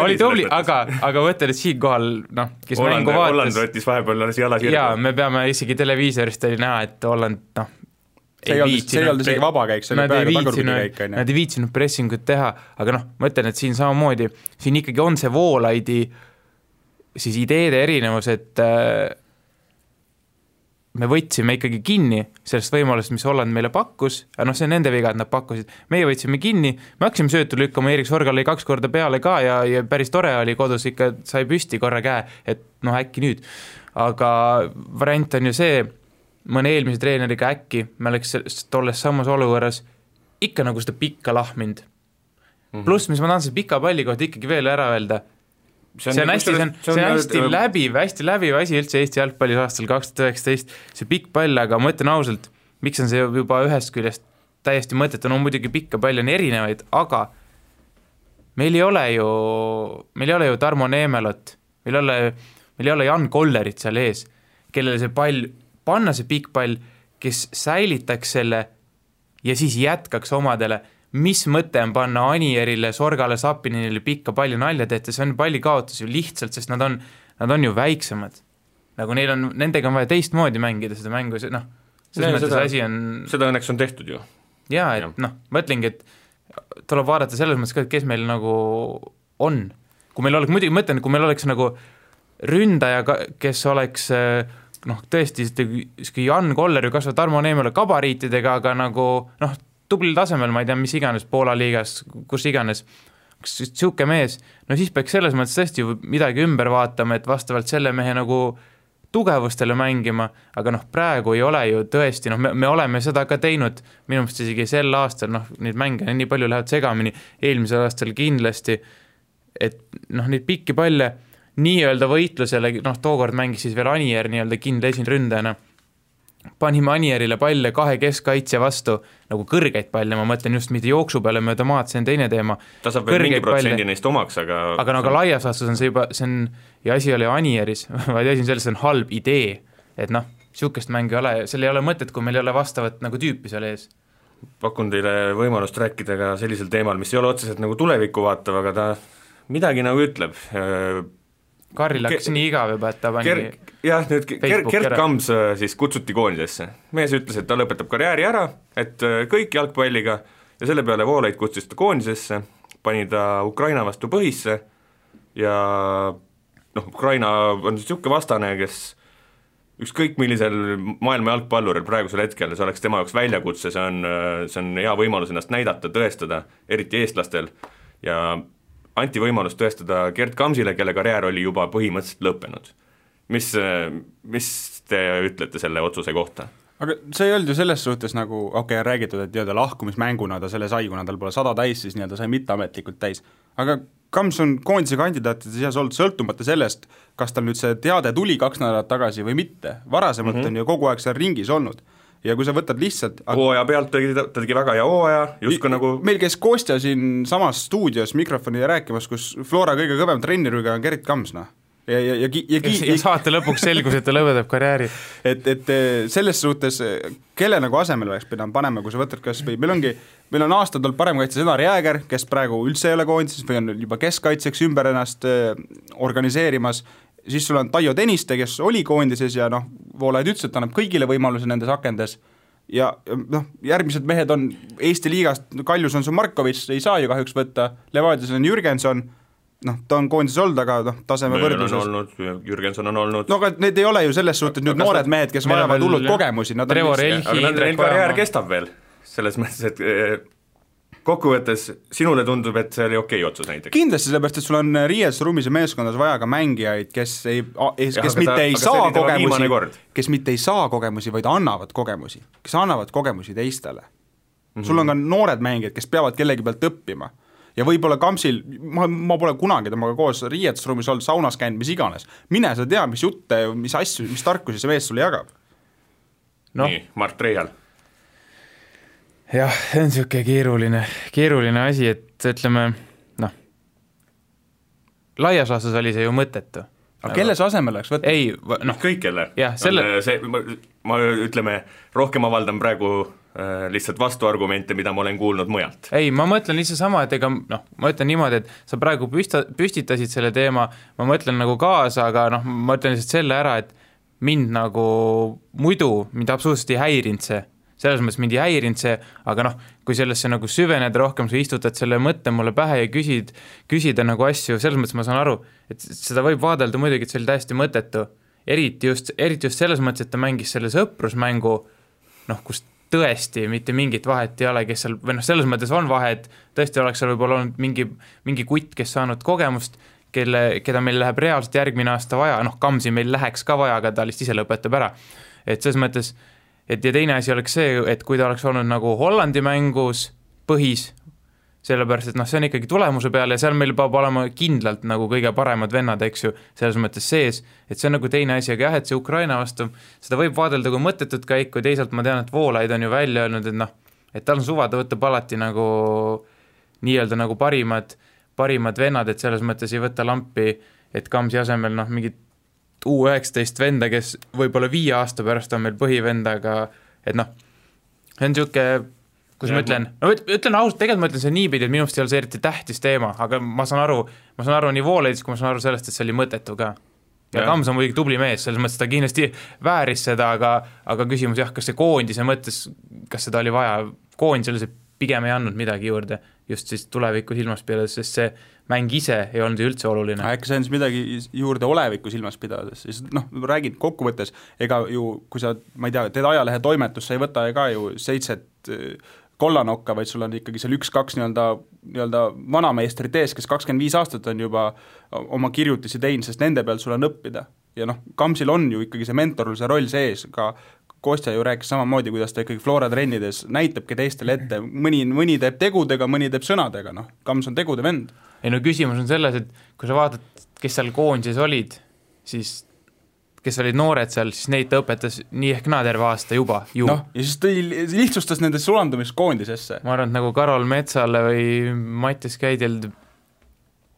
S5: oli tubli, aga võtted, et siin kohal, kes mängu vaatas.
S3: Holland võttis vahepeal jala sirgu.
S5: Jaa, me peame isegi televiisorist oli näha, et Holland,
S4: see ei olnud isegi vabakäik, see oli praegu tagurpidikäik.
S5: Nad ei viitsinud pressingut teha, aga ma ütlen, et siin samamoodi, siin ikkagi on see Voolaidi siis ideede erinevus, et me võtsime ikkagi kinni sellest võimalust, mis Holland meile pakkus, aga see on nende viga, et nad pakkusid. Meie võtsime kinni, me hakkasime söötu lükkama, Erik Sorgal oli 2 korda peale ka ja päris tore oli kodus, ikka sai püsti korra käe, et äkki nüüd. Aga variant on ju see, mõne eelmise treeneriga äkki, me oleks tolles samas olukorras ikka nagu seda pikka lahmind. Pluss, mis ma tahan selle pika palli kohta ikkagi veel ära öelda, see on hästi läbiv asi üldse Eesti jalgpallis aastal 2019, see pikk pall, aga ma ütlen ausalt, miks on see juba ühest küljest täiesti mõttetu, muidugi pikka pall on erinevaid, aga meil ei ole ju Tarmo Neemelot, meil ei ole Jan Kollerit seal ees, kellele see pall, panna see pikk pall, kes säilitaks selle ja siis jätkaks omadele. Mis mõte on panna Anierile, Sorgale, Sapinile pikka palli nalja tehta, see on palli kaotus ju lihtsalt, sest nad on ju väiksemad. Nagu nendega on vaja teistmoodi mängida seda mängu, selles mõttes asi on...
S3: Seda õnneks on tehtud ju.
S5: Jaa, et mõtlengi, et tuleb vaadata selles mõttes ka, et kes meil nagu on. Kui meil oleks, muidugi mõtlen, kui meil oleks nagu ründaja, kes oleks tõesti Jan Koller ju kasvab Tarmo Neemele kabariitidega, aga nagu tublil tasemel, ma ei tea, mis iganes Poola liigas, kus iganes, siuke mees, siis peaks selles mõttes tõesti midagi ümber vaatama, et vastavalt selle mehe nagu tugevustele mängima, aga praegu ei ole ju tõesti, me oleme seda ka teinud, minu meelest isegi sel aastal, neid mänge nii palju lähevad segamini, eelmisel aastal kindlasti, et neid pikki palle nii-öelda võitlusele, tookord mängis siis veel Anier nii-öelda kindla esinründajana, panime Anierile palle 2 keskkaitse vastu, nagu kõrgeid palle, ma mõtlen just mitte jooksu peale mööda maad, see on teine teema.
S3: Ta saab veel mingi protsendi neist omaks, aga...
S5: Aga laias vastus on see juba, ja asi oli Anieris, vaid asi on selles, see on halb idee, et sihukest mängu ei ole, seal ei ole mõtet, kui meil ei ole vastavat nagu tüüpi seal ees.
S3: Pakun teile võimalust rääkida ka sellisel teemal, mis ei ole otseselt nagu tulevikku vaatav, aga ta midagi nagu ütleb.
S5: Karil hakkas nii igav juba, et ta pani
S3: jah, nüüd Gert Kams siis kutsuti koondisesse. Mees ütles, et ta lõpetab karjääri ära, et kõik jalgpalliga ja selle peale Voolaid kutsus ta koondisesse, pani ta Ukraina vastu põhisse ja Ukraina on niisugune vastane, kes ükskõik millisel maailma jalgpalluril praegusel hetkel, see oleks tema jaoks väljakutse, see on hea võimalus ennast näidata, tõestada, eriti eestlastel, ja anti võimalus tõestada Gert Kamsile, kelle karjäär oli juba põhimõtteliselt lõppenud. Mis te ütlete selle otsuse kohta?
S4: Aga see ei olnud ju selles suhtes nagu, räägitud, et lahkumismänguna ta selle sai, kuna tal pole 100 täis, siis ta sai mitteametlikult täis. Aga Kams on koondise kandidaatide seas olnud sõltumata sellest, kas tal nüüd see teade tuli 2 nädalat tagasi või mitte. Varasemalt on ju kogu aeg seal ringis olnud. Ja kui sa võtad lihtsalt
S3: hooaja pealt ta tegi väga hea hooaja, justkui nagu
S4: meil käis Kostja siin samas stuudios mikrofoni rääkimas, kus Flora kõige kõvem trennirüga on Gert Kams,
S5: ja saate lõpuks selgus, et ta lõpetab karjääri.
S4: Et selles suhtes, kelle nagu asemel oleks pidanud panema, kui sa võtad kas või meil on aastad olnud parem kaitse Senar Jääger, kes praegu üldse ei ole koondises või on juba keskkaitseks ümber ennast organiseerimas, siis sul on Taio Tõniste, kes oli koondises ja Voolaid ütles, et annab kõigile võimaluse nendes akendes ja järgmised mehed on Eesti liigast, Kaljus on su Markovits, ei saa ju kahjuks võtta, Levadias on Jürgenson, ta on koondises olnud, aga taseme võrdluses
S3: Jürgenson on olnud
S4: aga need ei ole ju selles suhtes nüüd noored mehed, kes vajavad hullult kogemusi
S5: Trevor Elhi,
S3: aga neil karjäär kestab veel selles mõttes, et kokkuvõttes sinule tundub, et see oli okei otsus näiteks
S4: kindlasti, sellepärast, et sul on riiesruumis ja meeskondas vaja ka mängijaid, kes mitte ei saa kogemusi, vaid annavad kogemusi, kes annavad kogemusi teistele. Sul on ka noored mängijad, kes peavad kellegi pealt õppima ja võib-olla Kamsil, ma pole kunagi temaga koos riietusruumis olnud, saunas käinud, mis iganes. Mine sa tea, mis jutte, mis asju, mis tarkusi see mees sulle jagab.
S3: Nii, Mart Reial.
S5: Jah, see on siuke keeruline asi, et ütleme, laias laastus oli see ju mõttetu.
S4: Aga kelle see asemel oleks võtta?
S5: Ei,
S3: kõik kelle. Ma ütleme, rohkem avaldan praegu lihtsalt vastuargumente, mida ma olen kuulnud mujalt.
S5: Ei, ma mõtlen lihtsalt sama, et ma ütlen niimoodi, et sa praegu püstitasid selle teema, ma mõtlen nagu kaasa, aga ma ütlen lihtsalt selle ära, et mind nagu muidu, mind absoluutselt ei häirinud see. Selles mõttes mind ei häirinud see, aga kui sellesse nagu süveneda rohkem, sa istutad selle mõtte mulle pähe ja küsida nagu asju, selles mõttes ma saan aru, et seda võib vaadelda muidugi, et see oli täiesti mõttetu. Eriti just selles mõttes, et ta mängis selle sõprusmängu, kus tõesti mitte mingit vahet ei ole, kes seal, või selles mõttes on vahe, et tõesti oleks seal võib-olla olnud mingi kutt, kes saanud kogemust, keda meil läheb reaalselt järgmine aasta vaja, Kamsi meil läheks ka vaja, aga ta lihtsalt ise lõpetab ära. Et selles mõttes, et ja teine asi oleks see, et kui ta oleks olnud nagu Hollandi mängus põhis, sellepärast, et see on ikkagi tulemuse peale ja seal meil peab olema kindlalt nagu kõige paremad vennad, eks ju, selles mõttes sees, et see on nagu teine asi, aga jah, et see Ukraina vastu, seda võib vaadelda kui mõttetut käiku, teisalt ma tean, et Voolaid on ju välja öelnud, et tal on suva, ta võtab alati nagu nii-öelda nagu parimad vennad, et selles mõttes ei võta lampi, et Kamsi asemel mingid U19 venda, kes võib-olla 5 aasta pärast on meil põhivendaga, et see on siuke, kus ma ütlen ausalt, tegelikult ma ütlen see niipidi, et minu arust ei ole see eriti tähtis teema, aga ma saan aru nii Voolaidis, kui ma saan aru sellest, et see oli mõttetu ka. Ja Kams on muidugi tubli mees, selles mõttes ta kindlasti vääris seda, aga küsimus kas see koondise mõttes, kas seda oli vaja, koondisele see pigem ei andnud midagi juurde, just siis tuleviku silmas pidades, sest see mäng ise ei olnud ju üldse oluline.
S4: Äkki see on midagi juurde oleviku silmas pidades, siis räägid kokkuvõttes, ega ju, kui sa, ma ei tea, teed ajalehe toimetus, sa ei võta ka ju 7 kollanokka, vaid sul on ikkagi seal 1-2 nii-öelda vanameistrit ees, kes 25 aastat on juba oma kirjutisi teinud, sest nende peal sul on õppida. Ja Kamsil on ju ikkagi see mentorluse roll sees, ka Kostja ju rääkis samamoodi, kuidas ta ikkagi Flora trennides näitabki teistele ette, mõni teeb tegudega, mõni teeb sõnadega, Kams on tegude vend.
S5: Ei küsimus on selles, et kui sa vaatad, kes seal koondises olid, siis kes olid noored seal, siis neid ta õpetas nii ehk naa terve aasta juba ju.
S4: Ja siis ta lihtsustas nende sulandumist koondisesse.
S5: Ma arvan, et nagu Karol Metsale või Mattias Käidel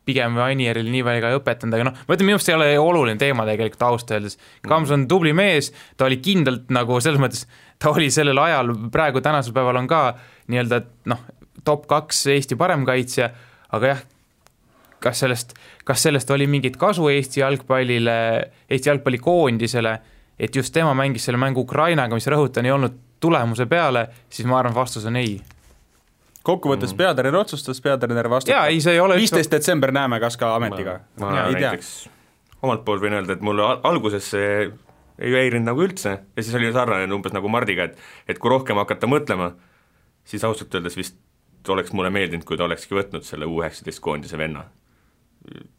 S5: pigem Anieril nii väga ei õpetanud, aga noh, ma ütlen, minu arust ei ole oluline teema tegelikult ausalt öeldes. Kams on tubli mees, ta oli kindlalt nagu selles mõttes, ta oli sellel ajal, praegu tänasel päeval on ka nii-öelda top 2 Eesti paremkaitsja, aga jah, kas sellest oli mingit kasu Eesti jalgpallikoondisele, et just tema mängis selle mängu Ukrainaga, mis rõhutan ei olnud tulemuse peale, siis ma arvan, vastus on ei.
S4: Kokkuvõttes peatreener otsustas, peatreener vastutab. 15. detsember näeme, kas ka ametiga.
S3: Ma näiteks omalt poolt võin öelda, et mulle alguses see ei häirinud nagu üldse ja siis oli sarnane umbes nagu Mardiga, et kui rohkem hakata mõtlema, siis ausalt öeldes vist oleks mulle meeldinud, kui ta olekski võtnud selle U19 koondise venna.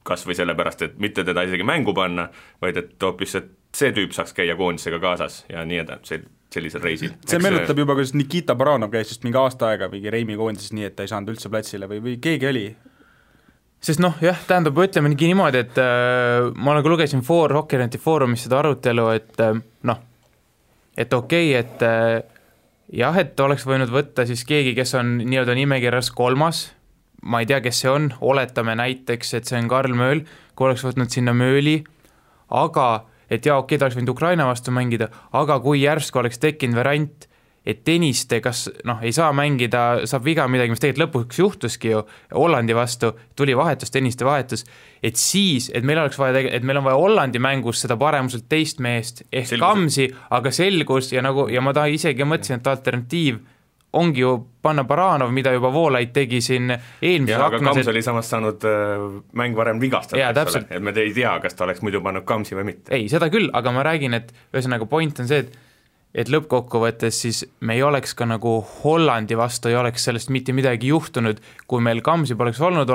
S3: Kas või sellepärast, et mitte teda isegi mängu panna, vaid et hoopis, et see tüüp saaks käia koondisega kaasas ja nii edasi, sellisel reisil.
S4: See meenutab juba, kuidas Nikita Baranov käis just mingi aasta aega mingi Reimi koondises nii, et ta ei saanud üldse platsile või keegi oli.
S5: Sest jah, tähendab, ütleme niimoodi, et ma nagu lugesin Hockey.neti foorumis seda arutelu, et okei, et jah, et oleks võinud võtta siis keegi, kes on nii-öelda nimekirjas 3, ma ei tea, kes see on, oletame näiteks, et see on Karl Mööl, kui oleks võtnud sinna Mööli, aga et ta oleks võinud Ukraina vastu mängida, aga kui järsku oleks tekkinud variant, et Tõniste kas ei saa mängida, saab viga midagi, mis tegelikult lõpuks juhtuski ju Hollandi vastu, tuli vahetus, Tõniste vahetus, et siis, et meil on vaja Hollandi mängus seda paremuselt teist meest ehk selgus. Kamsi, aga selgus ja ma isegi mõtlesin, et alternatiiv ongi ju panna Baranov, mida juba Voolaid tegi siin eelmises
S3: aknas. Aga Kams oli samas saanud mäng varem vigastada, et me ei tea, kas ta oleks muidu pannud Kamsi või mitte.
S5: Ei, seda küll, aga ma räägin, et ühesõnaga point on see, et lõppkokkuvõttes siis me ei oleks ka nagu Hollandi vastu, ei oleks sellest mitte midagi juhtunud, kui meil Kamsi poleks olnud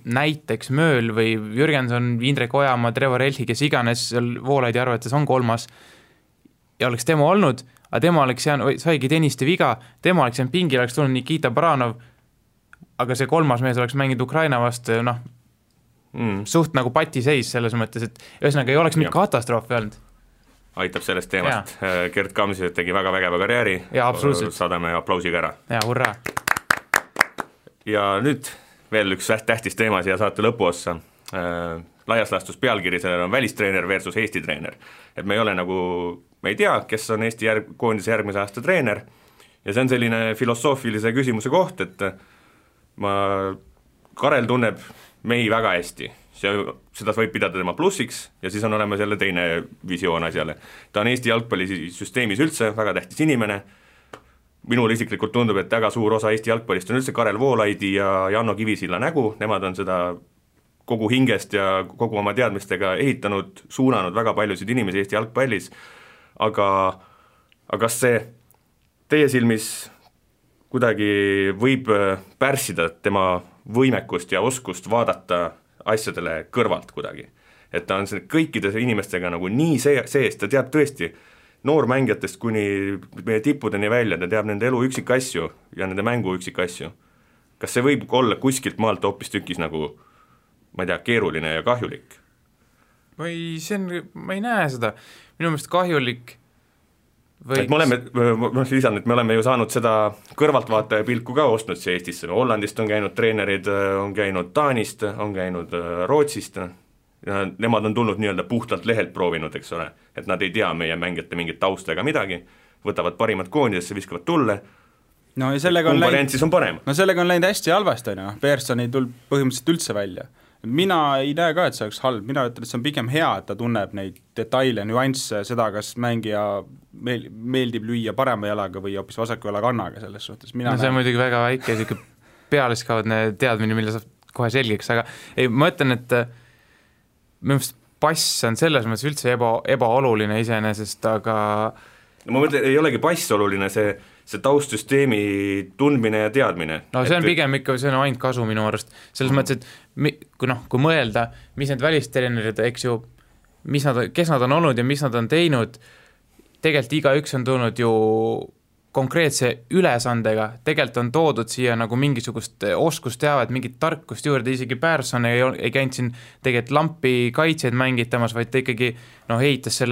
S5: näiteks Mööl või Jürgenson, Indrek Ojamaa, Trevor Elhi, kes iganes Voolaidi arvates on 3 ja oleks tema olnud, aga tema oleks saigi Tõniste viga, tema oleks jäänud pingil, oleks tulnud Nikita Baranov, aga see 3 mees oleks mänginud Ukraina vastu, suht nagu patiseis selles mõttes, et ühesõnaga ei oleks mitte katastroofi olnud.
S3: Aitab sellest teemast. Gert Kamsi tegi väga vägeva karjääri, saadame aplausiga ära.
S5: Ja, hurraa!
S3: Ja nüüd veel üks tähtis teema siia saate lõpuossa. Laias laastus pealkiri sellel on välistreener versus Eesti treener. Et me ei ole nagu, me ei tea, kes on Eesti koondise järgmise aasta treener ja see on selline filosoofilise küsimuse koht, et Karel tunneb mehi väga hästi, seda võib pidada tema plussiks ja siis on olemas jälle teine visioon asjale. Ta on Eesti jalgpallisüsteemis üldse väga tähtis inimene, minul isiklikult tundub, et väga suur osa Eesti jalgpallist on üldse Karel Voolaidi ja Janno Kivisilla nägu, nemad on seda kogu hingest ja kogu oma teadmistega ehitanud, suunanud väga paljusid inimesi Eesti jalgpallis, aga kas see teie silmis kuidagi võib pärssida tema võimekust ja oskust vaadata asjadele kõrvalt kuidagi? Et ta on kõikide inimestega nagu nii sees, ta teab tõesti noormängijatest kuni meie tippudeni välja, ta teab nende elu üksikasju ja nende mängu üksikasju. Kas see võib olla kuskilt maalt hoopis tükis nagu ma ei tea, keeruline ja kahjulik?
S5: Ma ei näe seda. Minu meelest kahjulik
S3: võiks... me oleme ju saanud seda kõrvaltvaataja pilku ka ostnud siia Eestisse. Hollandist on käinud treenerid, on käinud Taanist, on käinud Rootsist. Ja nemad on tulnud nii-öelda puhtalt lehelt proovinud, eks ole. Et nad ei tea meie mängijate mingit tausta ega midagi. Võtavad parimad koondidesse, viskavad tulle.
S4: No ja sellega
S3: on parem.
S4: No sellega on läinud hästi halvasti, Persson ei tulnud põhimõtteliselt üldse välja. Mina ei näe ka, et see oleks halb, mina ütlen, et see on pigem hea, et ta tunneb neid detaile, nüansse, seda, kas mängija meeldib lüüa parema jalaga või hoopis vasaku jala kannaga selles suhtes.
S5: See on muidugi väga väike pealiskaudne teadmine, mille saab kohe selgeks, aga ei, ma ütlen, et minu meelest pass on selles mõttes üldse ebaoluline iseenesest, aga
S3: ma mõtlen, ei olegi pass oluline, see taustsüsteemi tundmine ja teadmine.
S5: No see on pigem ikka, see on ainult kasu minu arust. Selles mõttes, et kui mõelda, mis need välistreenerid, eks ju, kes nad on olnud ja mis nad on teinud, tegelikult igaüks on tulnud ju konkreetse ülesandega, tegelikult on toodud siia nagu mingisugust oskusteavet, mingit tarkust juurde, isegi Persson ei käinud siin tegelikult lampi kaitseid mängitamas, vaid ta ikkagi heitas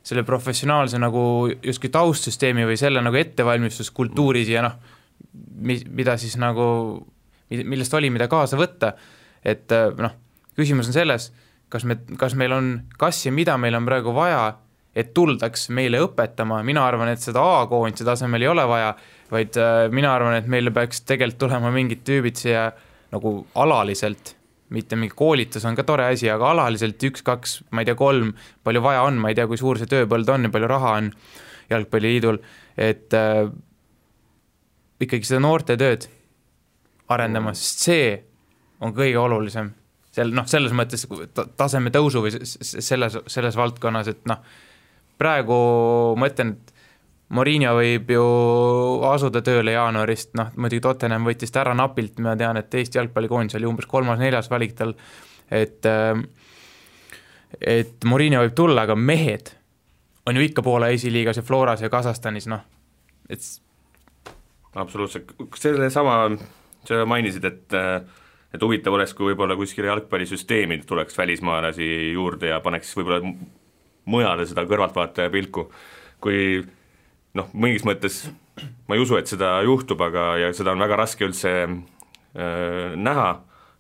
S5: selle professionaalse nagu justkui taustsüsteemi või selle nagu ettevalmistuskultuuris ja mida siis nagu, millest oli, mida kaasa võtta, et küsimus on selles, kas ja mida meil on praegu vaja, et tuldaks meile õpetama, mina arvan, et seda A-koondise tasemel ei ole vaja, vaid mina arvan, et meile peaks tegelikult tulema mingid tüübid siia nagu alaliselt, mitte mingi koolitus on ka tore asi, aga alaliselt 1, 2, ma ei tea 3, palju vaja on, ma ei tea, kui suur see tööpõld on ja palju raha on jalgpalliliidul, et ikkagi seda noorte tööd arendama, sest see on kõige olulisem. Selles mõttes taseme tõusu või selles valdkonnas, et praegu mõtlen, et Mourinho võib ju asuda tööle jaanuarist, muidugi Tottenham võttis ta ära napilt, ma tean, et Eesti jalgpallikoondis oli umbes 3.-4. valik tal, et Mourinho võib tulla, aga mehed on ju ikka Poola esiliigas ja Floras ja Kasahstanis, et
S3: absoluutselt, sa mainisid, et huvitav oleks, kui võib-olla kuskile jalgpallisüsteemi tuleks välismaalasi juurde ja paneks võib-olla mujale seda kõrvaltvaataja pilku, kui mingis mõttes ma ei usu, et seda juhtub, ja seda on väga raske üldse näha,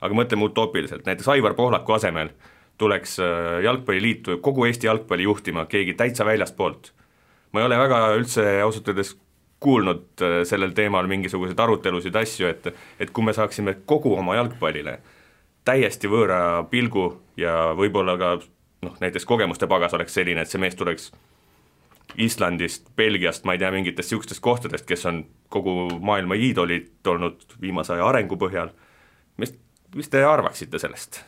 S3: aga mõtleme utoopiliselt, näiteks Aivar Pohlaku asemel tuleks jalgpalliliitu kogu Eesti jalgpalli juhtima keegi täitsa väljast poolt. Ma ei ole väga üldse ausalt öeldes kuulnud sellel teemal mingisuguseid arutelusid asju, et kui me saaksime kogu oma jalgpallile täiesti võõra pilgu ja võib-olla ka näiteks kogemuste pagas oleks selline, et see mees tuleks Islandist, Belgiast, ma ei tea, mingitest niisugustest kohtadest, kes on kogu maailma iidolid olnud viimase aja arengu põhjal. Mis te arvaksite sellest?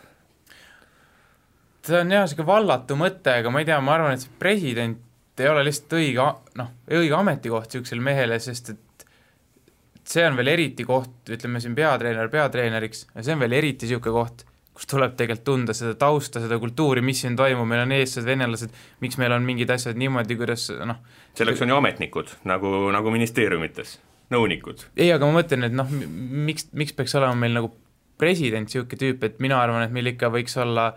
S5: See on jah, selline vallatu mõte, aga ma ei tea, ma arvan, et see president ei ole lihtsalt õige ametikoht niisugusele mehele, sest et see on veel eriti koht, ütleme siin peatreeneriks, ja see on veel eriti niisugune koht, kus tuleb tegelikult tunda seda tausta, seda kultuuri, mis siin toimub, meil on eestlased, venelased, miks meil on mingid asjad niimoodi, kuidas
S3: selleks on ju ametnikud, nagu ministeeriumites, nõunikud.
S5: Ei, aga ma mõtlen, et miks peaks olema meil nagu president niisugune tüüp, et mina arvan, et meil ikka võiks olla,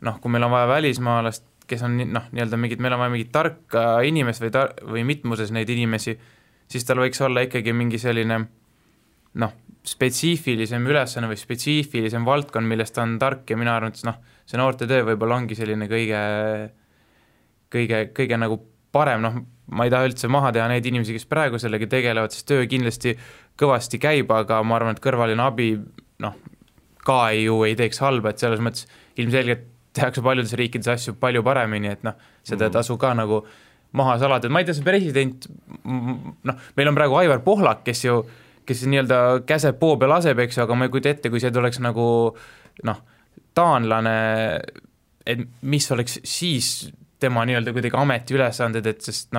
S5: kui meil on vaja välismaalast, kes on nii-öelda meil on vaja mingit tarka inimest või mitmuses neid inimesi, siis tal võiks olla ikkagi mingi selline spetsiifilisem ülesanne või spetsiifilisem valdkond, millest ta on tark ja mina arvan, et see noorte töö võib-olla ongi selline kõige nagu parem, ma ei taha üldse maha teha neid inimesi, kes praegu sellega tegelevad, sest töö kindlasti kõvasti käib, aga ma arvan, et kõrvaline abi ka ei teeks halba, et selles mõttes ilmselgelt tehakse paljudes riikides asju palju paremini, et seda tasu ka nagu maha salada, et ma ei tea, see president, meil on praegu Aivar Pohlak, kes nii-öelda käseb poo peal laseb, eks, aga ma ei kujuta ette, kui see tuleks nagu taanlane, et mis oleks siis tema nii-öelda kuidagi ametiülesanded, et sest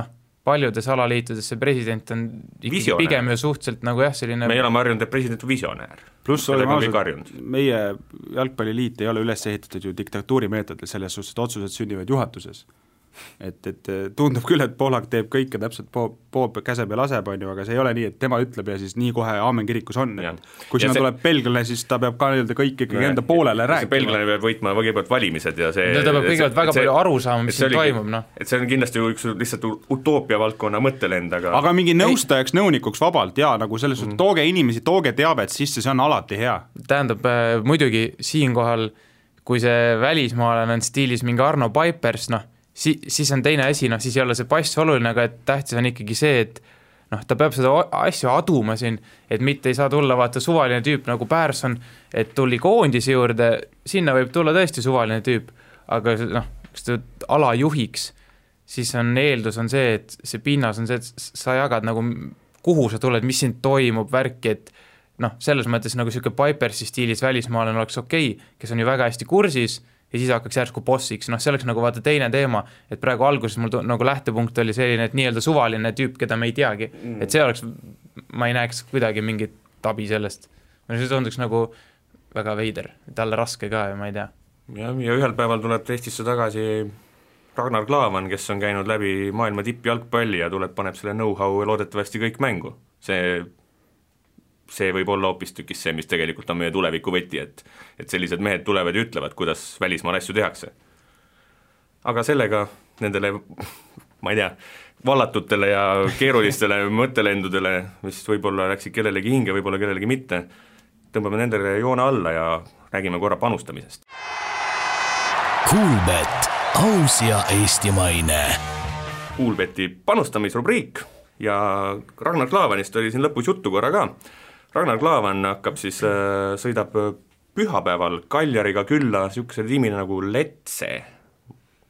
S5: paljudes alaliitudes see president on pigem ju suhteliselt nagu selline
S3: me oleme harjunud, et president on visionäär.
S4: Pluss oleme ausalt, meie jalgpalliliit ei ole üles ehitatud ju diktatuurimeetodil selles suhtes, et otsused sünnivad juhatuses. Et tundub küll, et Pohlak teeb kõike täpselt käseb ja laseb, aga see ei ole nii, et tema ütleb ja siis nii kohe aamen kirikus on. Kui sinna tuleb belglane, siis ta peab ka kõik ikkagi enda poolele rääkima.
S3: Belglane peab võitma kõigepealt valimised ja see
S5: ta peab kõigepealt väga palju aru saama, mis siin toimub.
S3: Et see on kindlasti üks lihtsalt utoopia valdkonna mõttelend,
S4: aga mingi nõustajaks, nõunikuks vabalt ja nagu selles suhtes, tooge inimesi, tooge teavet sisse, see on alati hea.
S5: Tähendab, muidugi siinkohal, kui see välismaalane on stiilis mingi Arno Paipers, siis on teine asi, siis ei ole see pass oluline, aga et tähtis on ikkagi see, et ta peab seda asju aduma siin, et mitte ei saa tulla vaata suvaline tüüp nagu Pärson, et tuli koondise juurde, sinna võib tulla tõesti suvaline tüüp, aga kas ta alajuhiks, siis on eeldus on see, et see pinnas on see, et sa jagad nagu, kuhu sa tuled, mis siin toimub, värki, et selles mõttes nagu selline Pipersi stiilis välismaalane oleks okei, kes on ju väga hästi kursis, ja siis hakkaks järsku bossiks, see oleks nagu vaata teine teema, et praegu alguses mul nagu lähtepunkt oli selline, et nii-öelda suvaline tüüp, keda me ei teagi, et see oleks, ma ei näeks kuidagi mingit abi sellest. See tunduks nagu väga veider, talle raske ka ja ma ei tea.
S3: Ja ühel päeval tuleb Eestisse tagasi Ragnar Klavan, kes on käinud läbi maailma tippjalgpalli ja paneb selle know-how loodetavasti kõik mängu. See võib olla hoopistükkis see, mis tegelikult on meie tuleviku võti, et sellised mehed tulevad ja ütlevad, kuidas välismaal asju tehakse. Aga sellega nendele, ma ei tea, vallatutele ja keerulistele mõttelendudele, mis võib-olla läksid kellelegi hinge, võib-olla kellelegi mitte, tõmbame nendele joone alla ja räägime korra panustamisest.
S2: Kuulbet, aus ja eestimaine.
S3: Kuulbeti panustamisrubriik ja Ragnar Klavanist oli siin lõpus juttu korra ka. Ragnar Klavan hakkab siis, sõidab pühapäeval Kaljariga külla niisuguse tiimina nagu Letse.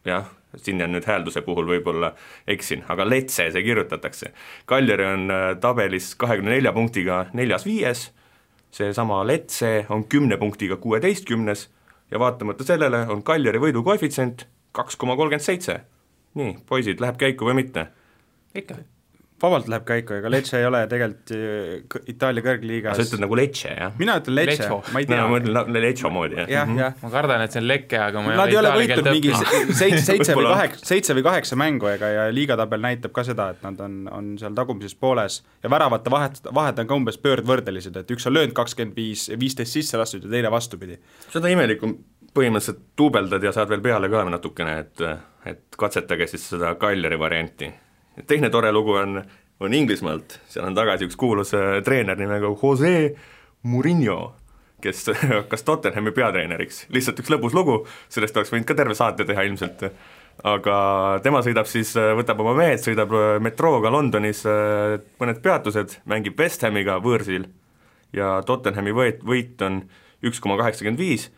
S3: Jah, siin on nüüd häälduse puhul võib-olla eksin, aga Letse see kirjutatakse. Kaljari on tabelis 24 punktiga 4-5, see sama Letse on 10 punktiga 16 ja vaatamata sellele on Kaljari võidu koefitsient 2,37. Nii, poisid, läheb käiku või mitte?
S5: Ikka.
S4: Vabalt läheb käiku, ega Lecce ei ole tegelikult Itaalia kõrgliigas.
S3: Sa ütled nagu Lecce, jah?
S4: Mina ütlen Lecce, ma ei tea.
S3: Ma mõtlen Lecce moodi, jah.
S5: Ma kardan, et see on Lecce, aga ma
S4: ei ole võitud mingi 7 või 8 mängu ja liigatabel näitab ka seda, et nad on seal tagumises pooles ja väravate vahed on ka umbes pöördvõrdelised, et üks on löönud 25, 15 sisse lastud ja teine vastupidi.
S3: Seda imelikum põhimõtteliselt tuubeldad ja saad veel peale ka natukene, et katsetage siis seda Kaljari varianti. Teine tore lugu on Inglismaalt, seal on tagasi üks kuulus treener nimega Jose Mourinho, kes hakkas Tottenhami peatreeneriks. Lihtsalt üks lõbus lugu, sellest oleks võinud ka terve saate teha ilmselt. Aga tema sõidab siis, võtab oma mehed, sõidab metrooga Londonis mõned peatused, mängib West Hamiga võõrsil ja Tottenhami võit on 1,85,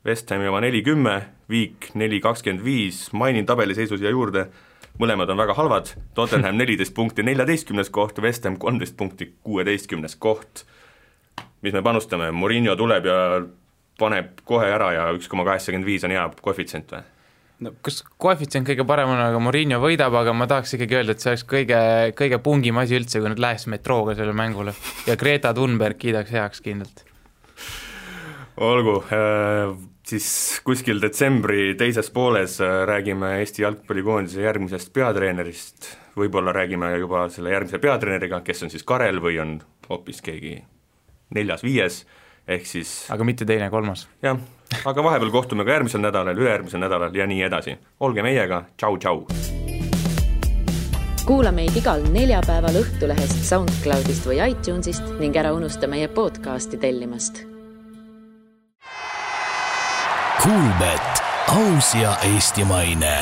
S3: West Hami oma 40, Viik 4,25, mainin tabeliseisus ja juurde, mõlemad on väga halvad, Tottenham 14 punkti 14. koht, West Ham 13 punkti 16. koht. Mis me panustame, Mourinho tuleb ja paneb kohe ära ja 1,85 on hea koefitsient või?
S5: No, kas koefitsient kõige parem on, aga Mourinho võidab, aga ma tahaks ikkagi öelda, et see oleks kõige pungim asi üldse, kui nad läheks metrooga selle mängule ja Greta Thunberg kiidaks heaks kindlalt.
S3: Olgu, siis kuskil detsembri teises pooles räägime Eesti jalgpallikoondise järgmisest peatreenerist, võib-olla räägime juba selle järgmise peatreeneriga, kes on siis Karel või on hoopis keegi 4-5, ehk siis
S5: aga mitte teine, 3.
S3: Jah, aga vahepeal kohtume ka järgmisel nädalal, ülejärgmisel nädalal ja nii edasi. Olge meiega, tšau!
S1: Kuula meid igal neljapäeval Õhtulehest, SoundCloudist või iTunesist ning ära unusta meie podcasti tellimast.
S2: Kuulbet, aus ja eestimaine.